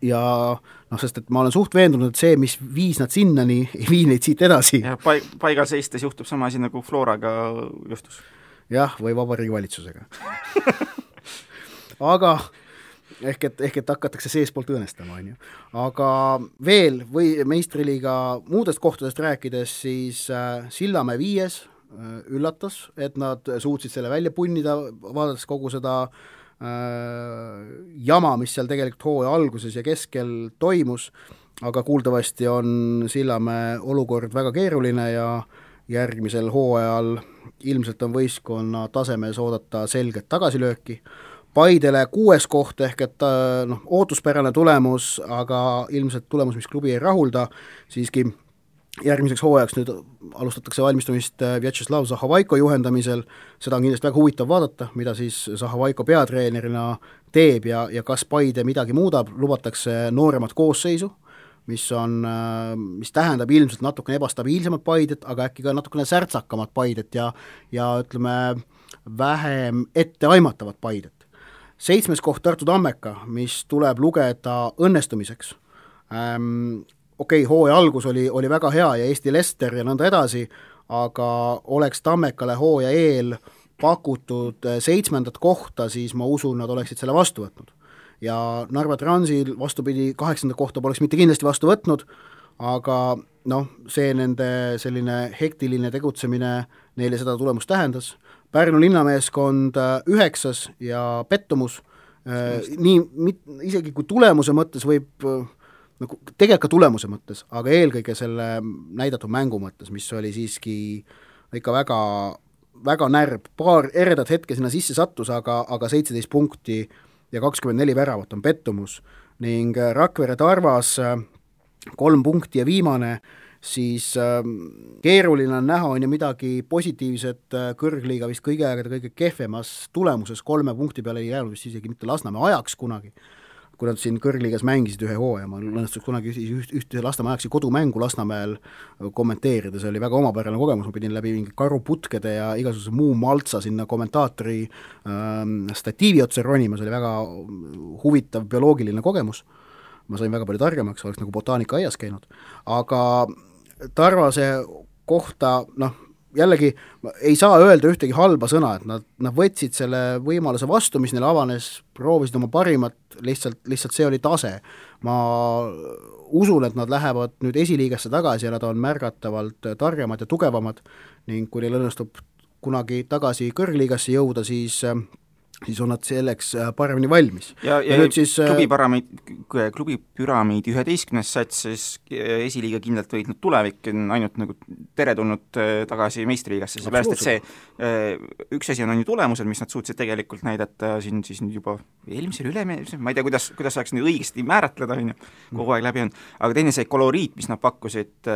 sest et ma olen suht veendunud, et see, mis viis nad sinnani, ei vii neid siit edasi. Ja paigal seistes juhtub sama asi nagu Floraga juhtus. Jah, või Vabariigi valitsusega. Aga ehk et hakatakse seespoolt õõnestama, on ju. Aga veel või meistriliiga muudest kohtadest rääkides, siis Sillamäe 5 üllatas, et nad suutsid selle välja punnida, vaadates kogu seda jama, mis seal tegelikult hooaja alguses ja keskel toimus, aga kuuldavasti on Sillamäe olukord väga keeruline ja järgmisel hooajal ilmselt on võistkonna tasemes oodata selget tagasilööki. Paidele 6. koht ehk et ootuspärane tulemus, aga ilmselt tulemus, mis klubi ei rahulda, siiski järgmiseks hooajaks nüüd alustatakse valmistumist Vjatšeslav Zahovaiko juhendamisel, seda on kindlasti väga huvitav vaadata, mida siis Zahovaiko peatreenerina teeb ja kas Paide midagi muudab, lubatakse nooremat koosseisu, mis tähendab ilmselt natukene ebastabiilsemat Paidet, aga äkki ka natukene särtsakamat Paidet ja ütleme, vähem etteaimatavat Paidet. 7. koht Tartu Tammeka, mis tuleb lugeda õnnestumiseks. Okei, hooaja algus oli väga hea ja Eesti Lester ja nõnda edasi, aga oleks Tammekale hooaja eel pakutud 7. kohta, siis ma usun, nad oleksid selle vastu võtnud. Ja Narva Transil vastupidi 8. kohta poleks mitte kindlasti vastu võtnud, aga see nende selline hektiline tegutsemine neile seda tulemust tähendas. Pärnu linnameeskond 9. ja pettumus, isegi kui tulemuse mõttes võib tegelikult ka tulemuse mõttes, aga eelkõige selle näidatud mängu mõttes, mis oli siiski ikka väga, väga närb, paar eredat hetke sinna sisse sattus, aga 17 punkti ja 24 väravat on pettumus ning Rakvere Tarvas 3 punkti ja viimane, siis keeruline on näha, on ju midagi positiivset kõrgliiga vist kõige kehvemas tulemuses 3 punkti peale ei jäänud vist isegi mitte Lasnamäe ajaks kunagi, kui nad siin kõrgliigas mängisid ühe hooaja, ma õnnestuks kunagi ühte Lasnamäe ajaksi kodumängu Lasnamäel kommenteerida, see oli väga omapärane kogemus, ma pidin läbi mingi karuputkede ja igasuguse muu maltsa sinna kommentaatori statiivi otsa ronima, see oli väga huvitav bioloogiline kogemus, ma sain väga palju targemaks, oleks nagu botaanika aias käinud, aga Tarvase kohta, jällegi ei saa öelda ühtegi halba sõna, et nad võtsid selle võimaluse vastu, mis neile avanes, proovisid oma parimat, lihtsalt see oli tase. Ma usun, et nad lähevad nüüd esiliigasse tagasi ja nad on märgatavalt targemad ja tugevamad ning kui neil õnnestub kunagi tagasi kõrgliigasse jõuda, siis on nad selleks paremini valmis. Ja nüüd siis klubi püramiidi 11. sats, siis esiliiga kindlalt võitnud tulevik on ainult nagu teretulnud tagasi meistriliigasse, seepärast, et see üks asi on ju tulemused, mis nad suutsid tegelikult näidata siin siis nüüd juba eelmisel ma ei tea, kuidas saaks nüüd õigesti määratleda, kogu aeg läbi on, aga teine see koloriit, mis nad pakkusid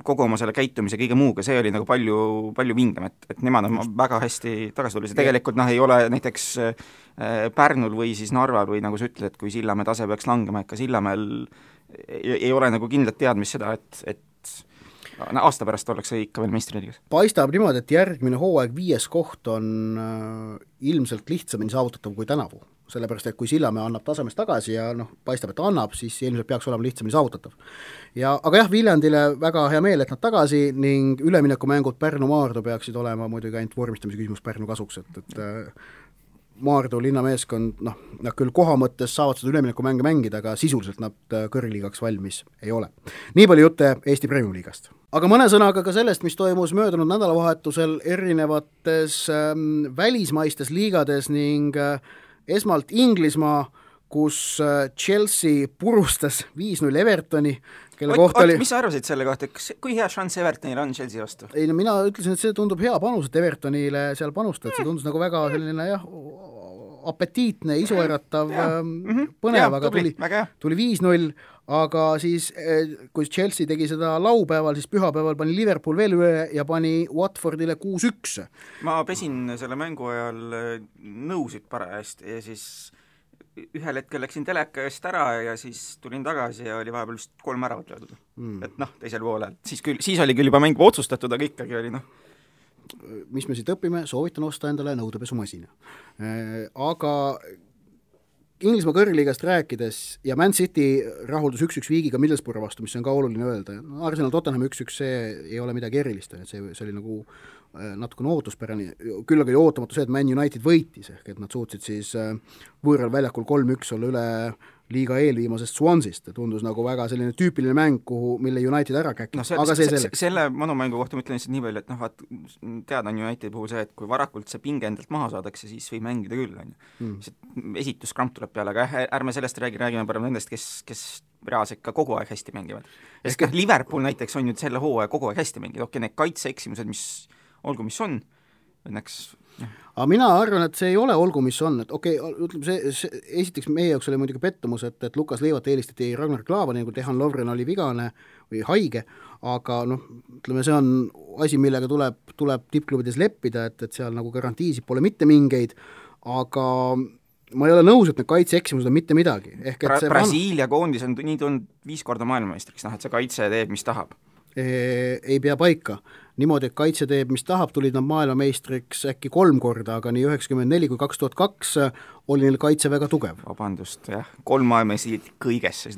kogu oma selle käitumise kõige muuga, see oli nagu palju vingem, et nemad on väga hästi tagasi tulnud, see tegelikult ei ole näiteks Pärnul või siis Narval või nagu sa ütled, et kui Sillamäe tase peaks langema, ikka Sillamäel ei ole nagu kindlat teadmist seda, et aasta pärast ollakse ikka veel meistriliigas. Paistab niimoodi, et järgmine hooaeg 5. koht on ilmselt lihtsamini saavutatav kui tänavu, sellepärast, et kui Sillamäe annab tasemest tagasi ja paistab, et annab, siis ilmselt peaks olema lihtsamini saavutatav. Aga jah, Viljandile väga hea meel, et nad tagasi ning üleminekumängud Pärnu Maardu peaksid olema muidugi ainult vormistamise küsimus Pärnu kasuks, et Maardu linnameeskond, nad küll koha mõttes saavad seda üleminekumänge mängida, aga sisuliselt nad kõrgliigaks valmis ei ole. Nii palju jutte Eesti Premium-liigast. Aga mõne sõnaga ka sellest, mis toimus möödunud nädalavahetusel erinevates välismaistes liigades ning esmalt Inglismaa, kus Chelsea purustas 5-0 Evertoni, kelle kohta oli... Mis sa arvasid selle kohta, kui hea šanss Evertonil on Chelsea vastu? Ei, mina ütlesin, et see tundub hea panus, et Evertonile seal panustada, see tundus nagu väga selline apetiitne, isueratav, põnev, aga tuli 5-0, aga siis kui Chelsea tegi seda laupäeval, siis pühapäeval pani Liverpool veel üle ja pani Watfordile 6-1. Ma pesin selle mängu ajal nõusid parajasti ja siis ühel hetkel läksin teleka eest ära ja siis tulin tagasi ja oli vahepeal vist 3 äravat löödud. Et teisel poolel. Siis oli küll juba mäng otsustatud, aga ikkagi oli Mis me siit õpime, soovitan osta endale nõudepesumasina. Aga Inglismaa kõrgliigast rääkides ja Man City rahuldus 1-1 Viigiga Middlesbrough vastu, mis on ka oluline öelda. Arsenal Tottenham 1-1, see ei ole midagi erilist, see oli nagu natukene ootuspärane, küll aga oli ootamatu see, et Man United võitis, ehk et nad suutsid siis võõral väljakul 3-1 olla üle liiga eelviimasest Swansist, tundus nagu väga selline tüüpiline mäng, mille United ära käkis, aga see selleks. Selle manumängu kohta ma ütlen lihtsalt nii palju, et vaat teada on Unitedi puhul see, et kui varakult see pinge endalt maha saadakse, siis võib mängida küll, esituskramp tuleb peale, aga ärme sellest räägime parem nendest, kes reaalselt ka kogu aeg hästi mängivad. Liverpool näiteks on ju selle hooaja kogu aeg hästi mänginud, need kaitseeksimused, mis olgu, mis on, õnneks aga mina arvan, et see ei ole olgu, mis on, et ütleme see esiteks meie jaoks oli muidugi pettumus, et Lukas Leivat eelistati Ragnar Klavani, kui Dejan Lovren oli vigane või haige, aga ütleme, see on asi, millega tuleb tippklubides leppida, et seal nagu garantiisid pole mitte mingeid, aga ma ei ole nõus, et need kaitseeksimused on mitte midagi. Brasiilia koondis on nii tulnud 5 korda maailmameistriks, et see kaitse teeb, mis tahab. Ei pea paika. Niimoodi, et kaitse teeb, mis tahab, tulid nad maailmameistriks äkki 3 korda, aga nii 94 kui 2002 oli neil kaitse väga tugev. Vabandust, jah, 3 maailmameistrit kõiges, siis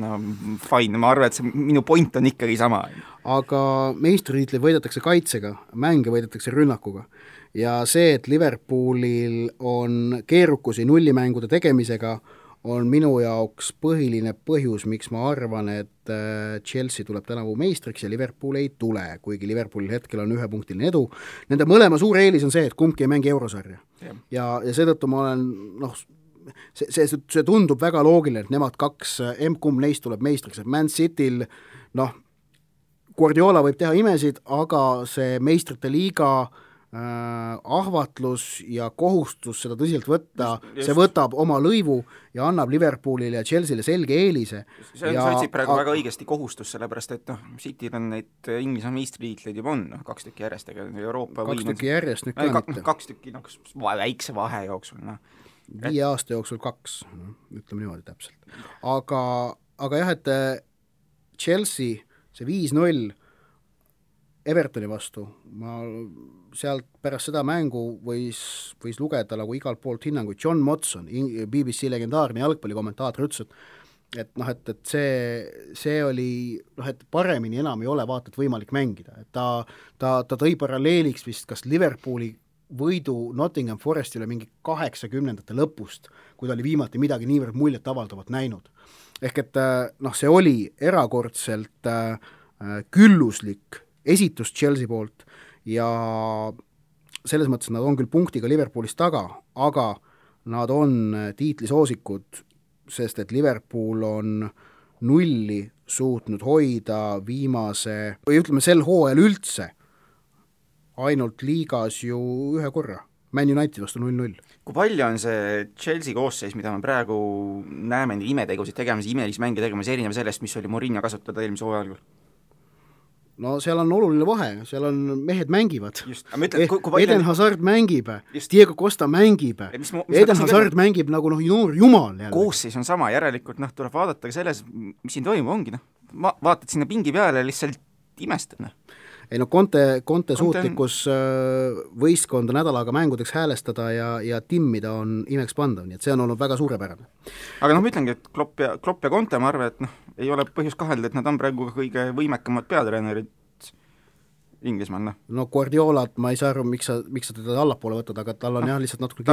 fine, ma arvan, et see minu point on ikkagi sama. Aga meistritiitleid võidetakse kaitsega, mänge võidetakse rünnakuga. Ja see, et Liverpoolil on keerukusi nullimängude tegemisega, on minu jaoks põhiline põhjus, miks ma arvan, et Chelsea tuleb tänavu meistriks ja Liverpool ei tule, kuigi Liverpoolil hetkel on 1-punktiline edu. Nende mõlema suur eelis on see, et kumbki ei mängi eurosarja. Ja seetõttu ma olen, see tundub väga loogiline, et nemad 2, kumb neist tuleb meistriks, et Man Cityl, Guardiola võib teha imesid, aga see meistrite liiga ahvatlus ja kohustus seda tõsiselt võtta, see võtab oma lõivu ja annab Liverpoolile ja Chelseale selge eelise. See on sotsib praegu väga õigesti kohustus, sellepärast et Cityl on neid Inglise meistriliitleid juba on, 2 tükki järjest, ega Euroopa 2 tükki järjest nüüd ka mitte. 2 tükki väikse vahe jooksul. 5 aasta jooksul 2, ütleme niimoodi täpselt. Aga jah, et Chelsea, see 5-0 Evertoni vastu, ma sealt pärast seda mängu võis lugeda nagu igalt poolt hinnanguid. John Motson, BBC legendaarne jalgpallikommentaator, ütles, et see oli, et paremini enam ei ole vaata, et võimalik mängida. Et ta tõi paralleeliks vist kas Liverpooli võidu Nottingham Forestile mingi 80ndate lõpust, kui ta oli viimati midagi niivõrd muljet avaldavat näinud. Ehk et see oli erakordselt külluslik esitus Chelsea poolt ja selles mõttes nad on küll punktiga Liverpoolist taga, aga nad on tiitlisoosikud, sest et Liverpool on 0 suutnud hoida viimase, või ütleme sel hooajal üldse, ainult liigas ju 1 korra. Man United vastu 0-0. Kui palju on see Chelsea koosseis, mida me praegu näeme imetegusid tegemas, imelisi mänge tegemas, erinev sellest, mis oli Mourinho kasutada eelmise hooajal? No seal on oluline vahe, seal on mehed mängivad. Eden Hazard mängib, Diego Costa mängib, Eden Hazard mängib nagu noor jumal. Koosseis on sama, järelikult tuleb vaadata ka selles, mis siin toimub, ongi. Vaatad sinna pingi peale, lihtsalt imestad. Ei Conte suutlikkus võistkonda nädalaga mängudeks häälestada ja timmida on imekspandav, nii et see on olnud väga suurepärane. Aga ma ütlengi, et Klopp ja Conte, ma arvan, et ei ole põhjus kahelda, et nad on praegu kõige võimekamad peatreenerid Inglismaal. No Guardiolat ma ei saa aru, miks sa teda allapoole võtad, aga tal on jah lihtsalt natuke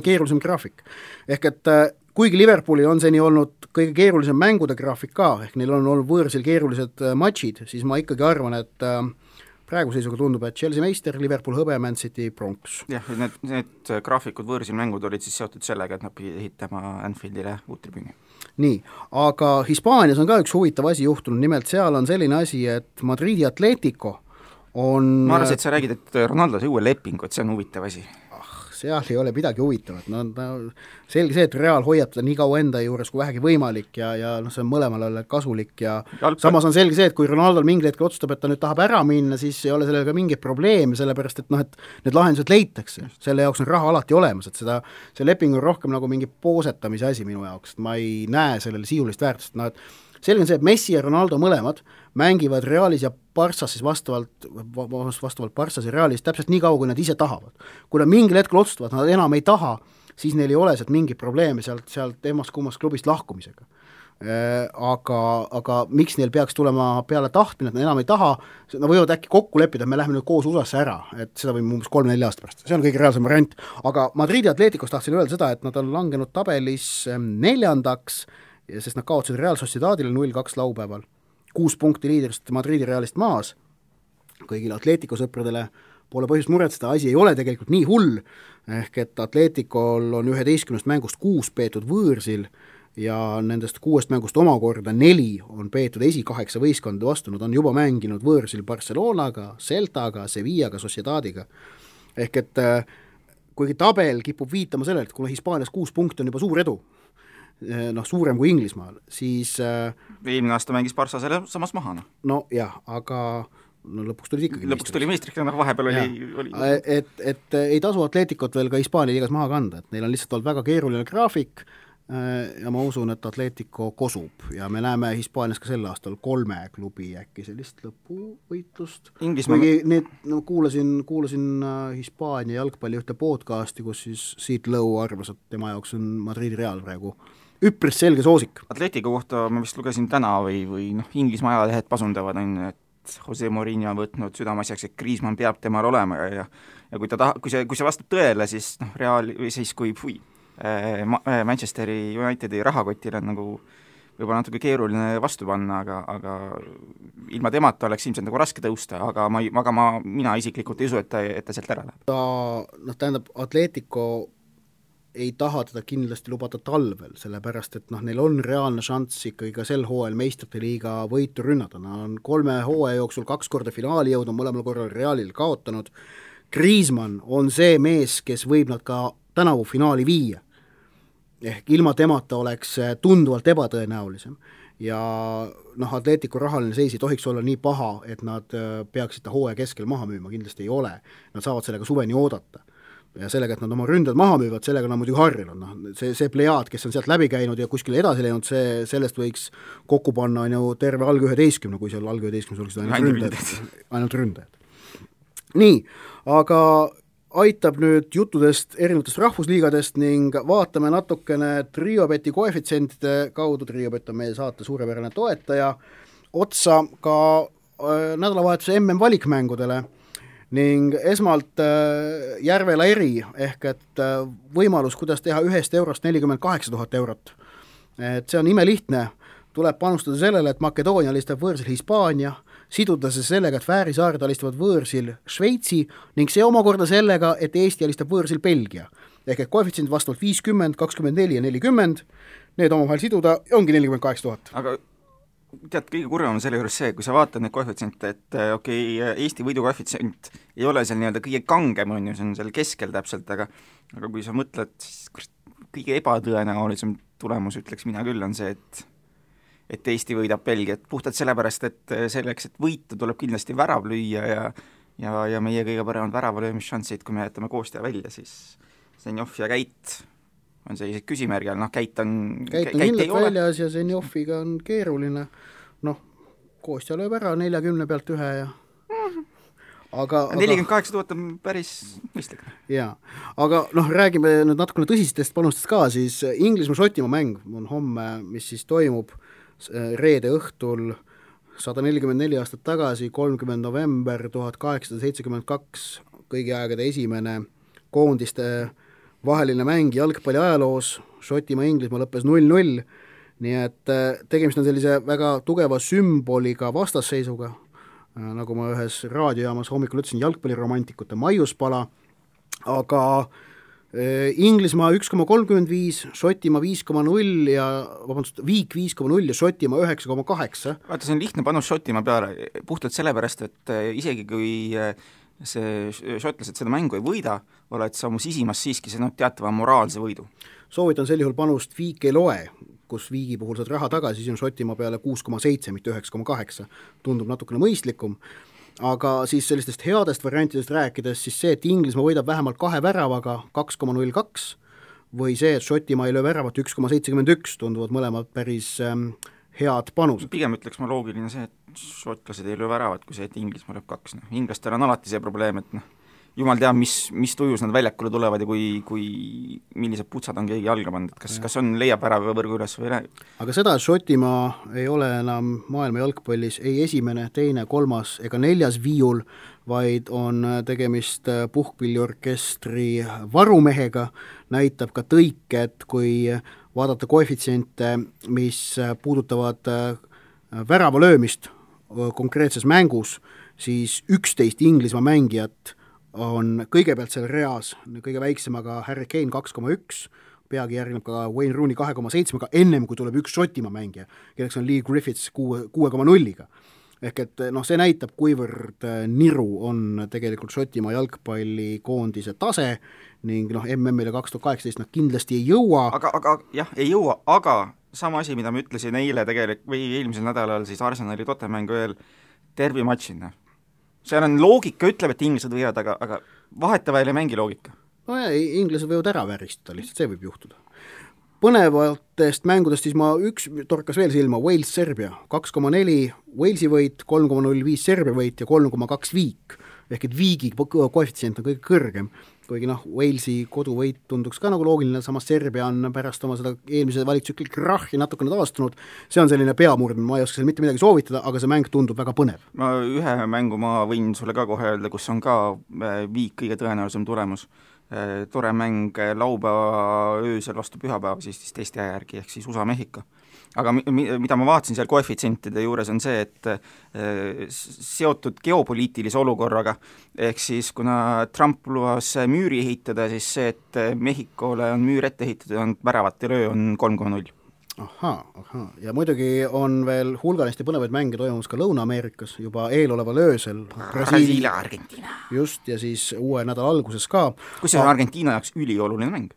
keerulisem graafik. Ehk et kuigi Liverpoolil on seni olnud kõige keerulisem mängude graafik ka, ehk neil on olnud võõrsil keerulised matšid, siis ma ikkagi arvan, et praegu seisuga tundub, et Chelsea meister, Liverpool hõbe, Man City pronks. Jah, need graafikud võõrsil mängud olid siis seotud sellega, et nad pidid ehitama Anfieldile uut tribüüni. Nii, aga Hispaanias on ka üks huvitav asi juhtunud, nimelt seal on selline asi, et Madridi Atletico on... Ma arvasin, et sa räägid, et Ronaldo sai uue lepingu, et see on huvitav asi. Seal ei ole midagi huvitavat, selge see, et Real hoiab teda nii kaua enda juures kui vähegi võimalik ja see on mõlemale kasulik ja samas on selge see, et kui Ronaldo mingil hetkel otsustab, et ta nüüd tahab ära minna, siis ei ole sellega mingit probleemi, sellepärast et need lahendused leitakse, selle jaoks on raha alati olemas, et see leping on rohkem nagu mingi poosetamise asi minu jaoks, et ma ei näe sellele sisulist väärtust, selge on see, et Messi ja Ronaldo mõlemad mängivad Realis ja Barssas siis vastavalt Barssas ja Realis täpselt nii kaua, kui nad ise tahavad. Kui nad mingil hetkel otsustavad, nad enam ei taha, siis neil ei ole sealt mingi probleeme sealt emast kummast klubist lahkumisega. aga miks neil peaks tulema peale tahtmine, et nad enam ei taha, nad võivad äkki kokku leppida, et me läheme nüüd koos USA-sse ära, et seda võime umbes 3-4 aasta pärast, see on kõige reaalsem variant, aga Madridi Atleticos tahtsin öelda seda, et nad on langenud tabelis 4. sest nad kaotasid Real Sociedadile 0-2 laupäeval, 6 punkti liidrist Madridi Realist maas, kõigile Atletico sõpradele pole põhjust muretseda, asi ei ole tegelikult nii hull, ehk et Atleticol on 11 mängust 6 peetud võõrsil ja nendest 6 mängust omakorda 4 on peetud esi-8 võistkonda vastu, nad on juba mänginud võõrsil Barcelonaga, Celtaga, Sevillaga, Sociedadiga. Ehk et kuigi tabel kipub viitama sellele, et kuna Hispaanias 6 punkti on juba suur edu, suurem kui Inglismaal, siis eelmine aasta mängis Barca selle samas maha. No jah, aga lõpuks tuli ikkagi meistriks, vahepeal oli. Et ei tasu Atleticot veel ka Hispaania liigas maha kanda, et neil on lihtsalt olnud väga keeruline graafik ja ma usun, et Atletico kosub ja me näeme Hispaanias ka sel aastal 3 klubi äkki sellist lõpuvõitlust. Kuulasin Hispaania jalgpalli ühte podcasti, kus siis Siit Lõu arvas, et tema jaoks on Madridi Real praegu üpris selge soosik. Atletico kohta ma vist lugesin täna või Inglismaa ajalehed pasundavad, et Jose Mourinho on võtnud südameasjaks, et Griezmann peab temal olema ja kui see vastab tõele, siis Real või siis kui Manchesteri Unitedi rahakotile on nagu võib-olla natuke keeruline vastu panna, aga ilma temata oleks ilmselt nagu raske tõusta, aga mina isiklikult ei usu, et ta sealt ära läheb. Tähendab, Atletico ei taha teda kindlasti lubada talvel, sellepärast et neil on reaalne šanss ikkagi ka sel hooajal meistrite liiga võitu rünnata, nad on 3 hooaja jooksul 2 korda finaali jõudnud, mõlemal korral Realil kaotanud. Griezmann on see mees, kes võib nad ka tänavu finaali viia, ehk ilma temata oleks tunduvalt ebatõenäolisem ja Atletico rahaline seis ei tohiks olla nii paha, et nad peaksid ta hooaja keskel maha müüma, kindlasti ei ole, nad saavad sellega suveni oodata ja sellega, et nad oma ründad maha müüvad, sellega nad muidugi harjunud, see plejaad, kes on sealt läbi käinud ja kuskile edasi läinud, sellest võiks kokku panna terve alg 11, kui seal alg 11 oleksid ainult ründajad. Nii, aga aitab nüüd juttudest erinevatest rahvusliigadest ning vaatame natukene Triobeti koefitsientide kaudu, Triobet on meie saate suurepärane toetaja, otsa ka nädalavahetuse MM-valikmängudele ning esmalt Järvela eri, ehk et võimalus, kuidas teha 1 eurost 48 000 eurot. Et see on imelihtne, tuleb panustada sellele, et Makedoonia alistab võõrsil Hispaania, siduda see sellega, et Fääri saared alistavad võõrsil Šveitsi ning see omakorda sellega, et Eesti alistab võõrsil Belgia. Ehk et koefitsient vastavalt 50, 24 ja 40, need omavahel siduda ja ongi 48 000. Aga tead, kõige kurvem on selle juures see, kui sa vaatad neid koefitsiente, et Eesti võidu koefitsient ei ole seal nii-öelda kõige kangem, see on seal keskel täpselt, aga kui sa mõtled, siis kõige ebatõenäolisem tulemus, ütleks mina küll, on see, et Eesti võidab Belgiat puhtalt sellepärast, et selleks, et võita, tuleb kindlasti värav lüüa ja meie kõige paremad väravalöömisšansid, kui me jätame Koostja välja, siis Zenjov ja Käit on sellised küsimärgi all, Käit kindlalt väljas ja Zenjoviga on keeruline, Koostja lööb ära 40 pealt ühe ja 48 000 on päris mõistlik. Jaa, aga räägime nüüd natukene tõsistest panustest ka, siis Inglismaa-Šotimaa mäng on homme, mis siis toimub reede õhtul 144 aastat tagasi, 30. november 1872, kõigi aegade esimene koondiste vaheline mäng jalgpalli ajaloos, Šotimaa-Inglismaa lõppes 0-0, nii et tegemist on sellise väga tugeva sümboliga vastasseisuga, nagu ma ühes raadiojaamas hommikul ütlesin, jalgpalliromantikute maiuspala, aga Inglismaa 1,35, Šotimaa 5,0 ja Viik 5,0 ja Šotimaa 9,8. Vaata, see on lihtne panus Šotimaa peale, puhtalt sellepärast, et isegi kui see šotlased seda mängu ei võida, oled sa mu sisimas siiski teatava moraalse võidu. Soovitan sel juhul panust Viik ei loe, kus Viigi puhul saad raha tagasi, siis on Šotimaa peale 6,7, mitte 9,8. Tundub natukene mõistlikum, aga siis sellistest headest variantidest rääkides, siis see, et Inglismaa võidab vähemalt 2 väravaga 2,02 või see, et Šotimaa ei löö väravat 1,71, tunduvad mõlemad päris head panused. Pigem ütleks ma loogiline see, et šotlased ei löö väravat, kui see, et Inglismaa lööb 2. Inglastel on alati see probleem, et jumal teab, mis tujus nad väljakule tulevad ja kui millised putsad on keegi jalga pannud, et kas on, leiab ära võrgu üles või ei. Aga seda, et Šotimaa ei ole enam maailma jalgpallis ei esimene, teine, kolmas ega neljas viiul, vaid on tegemist puhkpilliorkestri varumehega, näitab ka tõike, et kui vaadata koefitsiente, mis puudutavad värava löömist konkreetses mängus, siis 11 Inglismaa mängijat on kõigepealt seal reas, kõige väiksemaga Harry Kane 2,1, peagi järgneb ka Wayne Rooney 2,7, ennem kui tuleb üks Šotimaa mängija, kelleks on Lee Griffiths 6,0-ga. Ehk et see näitab, kuivõrd niru on tegelikult Šotimaa jalgpallikoondise tase ning MM-ile 2018 nad kindlasti ei jõua. Aga jah, ei jõua, aga sama asi, mida ma ütlesin eile tegelikult või eelmisel nädalal siis Arsenali Tottenhami veel tervimatšina. Seal on loogika, ütleb, et inglased võivad, aga vahetavahel ei mängi loogika. No ja, inglased võivad ära väristada, lihtsalt see võib juhtuda. Põnevatest mängudest siis üks torkas veel silma, Wales-Serbia, 2,4 Walesi võit, 3,05 Serbia võit ja 3,2 viik, ehk et viigi koefitsient on kõige kõrgem, kuigi Walesi koduvõit tunduks ka nagu loogiline, samas Serbia on pärast oma seda eelmise valitsükli krahhi natukene taastunud, see on selline peamurdmine, ma ei oska seal mitte midagi soovitada, aga see mäng tundub väga põnev. Ühe mängu ma võin sulle ka kohe öelda, kus on ka viik kõige tõenäolisem tulemus. Tore mäng laupäeva öösel vastu pühapäeva siis teiste järgi, ehk siis USA-Mehhiko. Aga mida ma vaatasin seal koefitsientide juures on see, et seotud geopoliitilise olukorraga, ehk siis kuna Trump lubas müüri ehitada, siis see, et Mehhikole on müür ette ehitatud, on väravate löö on 3,0. Ahaa, ja muidugi on veel hulganisti põnevaid mänge toimumas ka Lõuna-Ameerikas juba eeloleval öösel. Brasiilia, Argentiina. Just, ja siis uue nädala alguses ka. Kus see on Argentiina jaoks ülioluline mäng?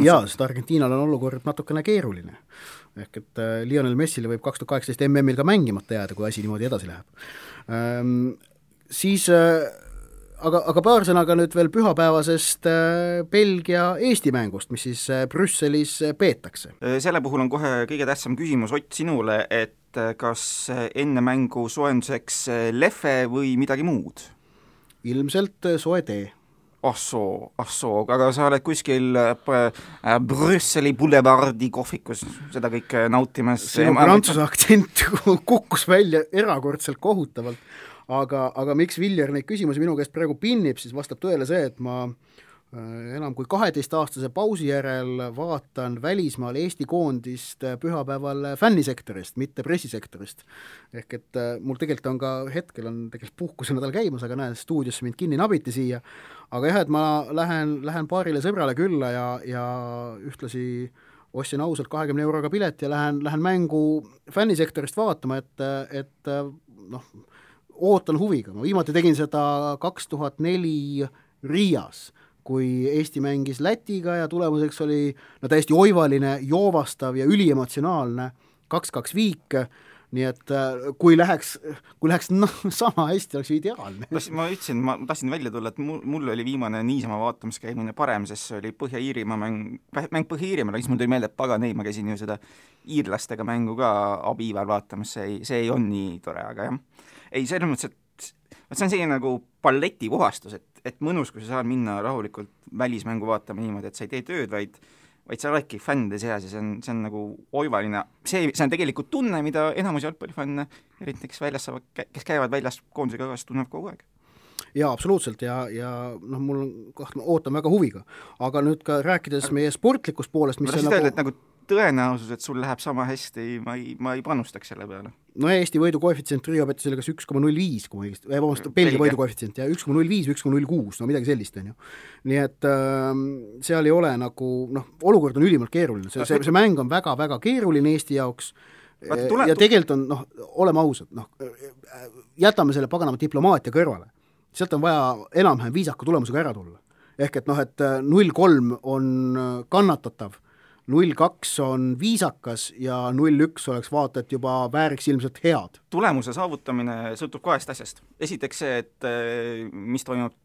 Jaa, sest Argentiinal on olukord natukene keeruline. Ehk et Lionel Messile võib 2018 MM-il ka mängimata jääda, kui asi niimoodi edasi läheb. Siis aga paar sõnaga nüüd veel pühapäevasest Belgia-Eesti mängust, mis siis Brüsselis peetakse. Selle puhul on kohe kõige tähtsam küsimus Ott sinule, et kas enne mängu soojenduseks lehve või midagi muud? Ilmselt soe tee. aga sa oled kuskil Brüsseli boulevardi kohvikus seda kõike nautimas. Sinu prantsuse aktsent kukkus välja erakordselt kohutavalt. Aga miks Viljar neid küsimusi minu käest praegu pinnib, siis vastab tõele see, et ma enam kui 12-aastase pausi järel vaatan välismaal Eesti koondist pühapäeval fännisektorist, mitte pressisektorist. Ehk et mul tegelikult on ka hetkel on tegelikult puhkuse nädal käimas, aga näen, stuudiosse mind kinni nabiti siia. Aga jah, et ma lähen paarile sõbrale külla ja ühtlasi ostsin ausalt 20 euroga pilet ja lähen mängu fännisektorist vaatama, et ootan huviga. Ma viimati tegin seda 2004 Riias, kui Eesti mängis Lätiga ja tulemuseks oli täiesti oivaline, joovastav ja üliemotsionaalne 2-2 viik, nii et kui läheks sama hästi, oleks ideaalne. Ma ütlesin, ma tahtsin välja tulla, et mul oli viimane niisama vaatamiskäimine parem, sest see oli Põhja-Iirimaa mäng Põhja-Iirimaal, siis mul tuli meelde, et pagan ei, ma käisin ju seda iirlastega mängu ka abiival vaatamas, see ei on nii tore, aga jah. Ei, selles mõttes, et see on selline nagu palleti puhastus, et mõnus, kui sa saad minna rahulikult välismängu vaatama niimoodi, et sa ei tee tööd, vaid sa oledki fännide seas ja see on nagu oivaline. See on tegelikult tunne, mida enamus jalgpallifanne, eriti kes käivad väljas koondusega kaasa, tunnevad kogu aeg. Jaa, absoluutselt ja mul ootan väga huviga. Aga nüüd ka rääkides meie sportlikust poolest, mis on nagu tõenäosus, et sul läheb sama hästi, ma ei panustaks selle peale. No Eesti võidu koefitsient Rio petis oli kas 1,05, kui Belgia võidu koefitsient, ja 1,05, 1,06, midagi sellist on ju. Nii et seal ei ole nagu, olukord on ülimalt keeruline, see mäng on väga-väga keeruline Eesti jaoks ja tegelikult on, oleme ausad, jätame selle paganama diplomaatia kõrvale. Sealt on vaja enam-vähem viisaka tulemusega ära tulla. Ehk et 0-3 on kannatatav, 0-2 on viisakas ja 0-1 oleks vaata, et juba vääriks ilmselt head. Tulemuse saavutamine sõltub kahest asjast. Esiteks see, et mis toimub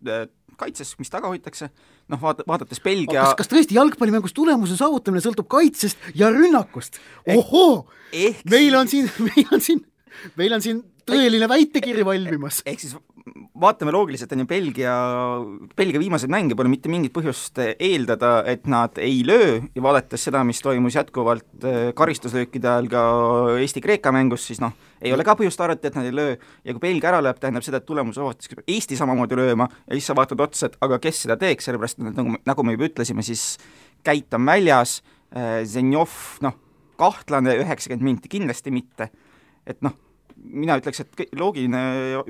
kaitses, mis taga hoitakse, vaadates Belgia... Kas tõesti jalgpallimängus tulemuse saavutamine sõltub kaitsest ja rünnakust? Ohoo! Meil on siin tõeline väitekiri valmimas. Ehk siis vaatame loogiliselt, on ju Belgia viimaseid mänge pole mitte mingit põhjust eeldada, et nad ei löö ja vaadates seda, mis toimus jätkuvalt karistuslöökide ajal ka Eesti-Kreeka mängus, siis ei ole ka põhjust arvata, et nad ei löö ja kui Belgia ära lööb, tähendab seda, et tulemus vaadates Eesti samamoodi lööma ja siis sa vaatad otsa, et aga kes seda teeks, sellepärast et nagu me juba ütlesime, siis Käit on väljas, Zenjov, kahtlane 90 minti, kindlasti mitte, et mina ütleks, et loogiline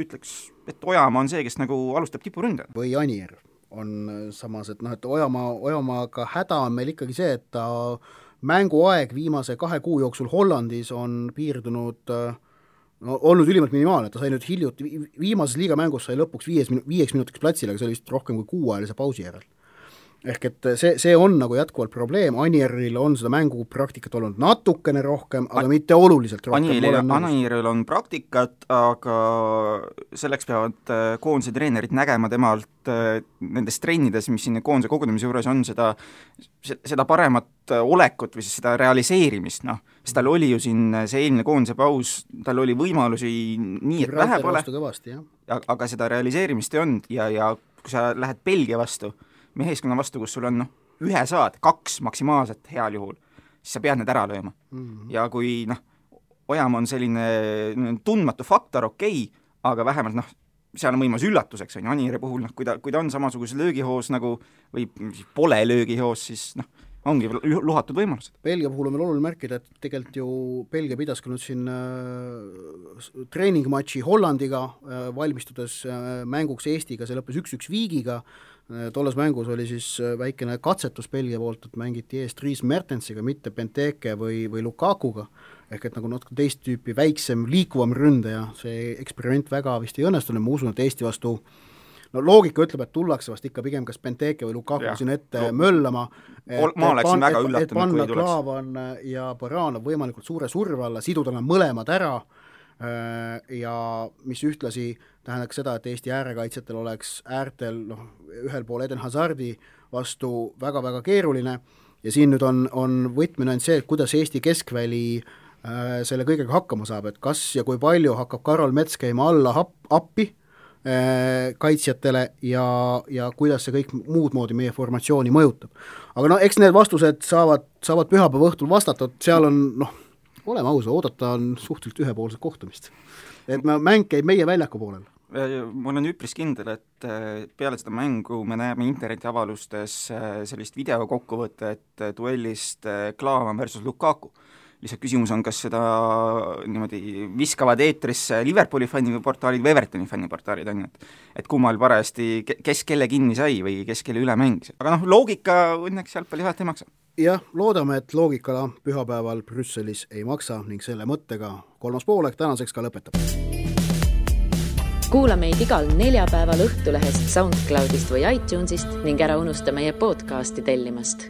ütleks, et Ojamaa on see, kes nagu alustab tipuründe. Või Anier on samas, et et Ojamaaga häda on meil ikkagi see, et ta mänguaeg viimase 2 kuu jooksul Hollandis on piirdunud olnud ülimalt minimaalne, ta sai nüüd hiljuti, viimases liigamängus sai lõpuks 5 minutiks platsile, aga see oli vist rohkem kui 6-ajalise pausi järel. Ehk et see on nagu jätkuvalt probleem, Anieril on seda mängupraktikat olnud natukene rohkem, aga mitte oluliselt rohkem. Anieril on praktikat, aga selleks peavad koondise treenerid nägema temalt nendes trennides, mis siin koondise kogunemise juures on, seda paremat olekut või siis seda realiseerimist, sest tal oli ju siin see eelmine koondise paus, tal oli võimalusi nii, et vähe pole, aga seda realiseerimist ei olnud ja kui sa lähed Belgia vastu, meeskonna vastu, kus sul on 1 saad, 2 maksimaalselt heal juhul, siis sa pead need ära lööma. Ja kui Ojamaa on selline tundmatu faktor, okei, aga vähemalt seal on võimalus üllatuseks, on Anieri puhul, kui ta on samasuguses löögihoos nagu, või pole löögihoos, siis ongi luhatud võimalused. Belgia puhul on meil oluline märkida, et tegelikult ju Belgia pidas ka nüüd siin treeningmatši Hollandiga, valmistudes mänguks Eestiga, see lõppes 1-1 viigiga, tolles mängus oli siis väikene katsetus Belgia poolt, et mängiti eest Dries Mertensiga, mitte Benteke või Lukakuga, ehk et nagu natuke teist tüüpi väiksem, liikuvam ründaja, see eksperiment väga vist ei õnnestunud, ma usun, et Eesti vastu loogika ütleb, et tullakse vast ikka pigem kas Benteke või Lukaku siin ette möllama, ma oleksin väga üllatunud, et panna Klaavan ja Baranov võimalikult suure surve alla, siduda nad mõlemad ära ja mis ühtlasi tähendaks seda, et Eesti äärekaitsjatel oleks äärtel ühel pool Eden Hazardi vastu väga-väga keeruline ja siin nüüd on võtmine on see, et kuidas Eesti keskväli selle kõigega hakkama saab, et kas ja kui palju hakkab Karol Mets käima alla appi kaitsjatele ja kuidas see kõik muud moodi meie formatsiooni mõjutab. Aga eks need vastused saavad pühapäeva õhtul vastatud, seal on oleme ausa, oodata on suhteliselt ühepoolset kohtumist. Et mäng käib meie väljaku poolel. Ma olen üpris kindel, et peale seda mängu me näeme internetiavalustes sellist videokokkuvõtet duellist Klaavan versus Lukaku. Lihtsalt küsimus on, kas seda niimoodi viskavad eetrisse Liverpooli fänniportaalid või Evertoni fänniportaalid on, et kummal parajasti, kes kelle kinni sai või kes kelle üle mängis. Aga loogika õnneks jalgpalli vahet ei maksa. Jah, loodame, et loogikala pühapäeval Brüsselis ei maksa ning selle mõttega 3. poolek tänaseks ka lõpetab. Kuula meid igal neljapäeval Õhtulehest, SoundCloudist või iTunesist ning ära unusta meie podcasti tellimast.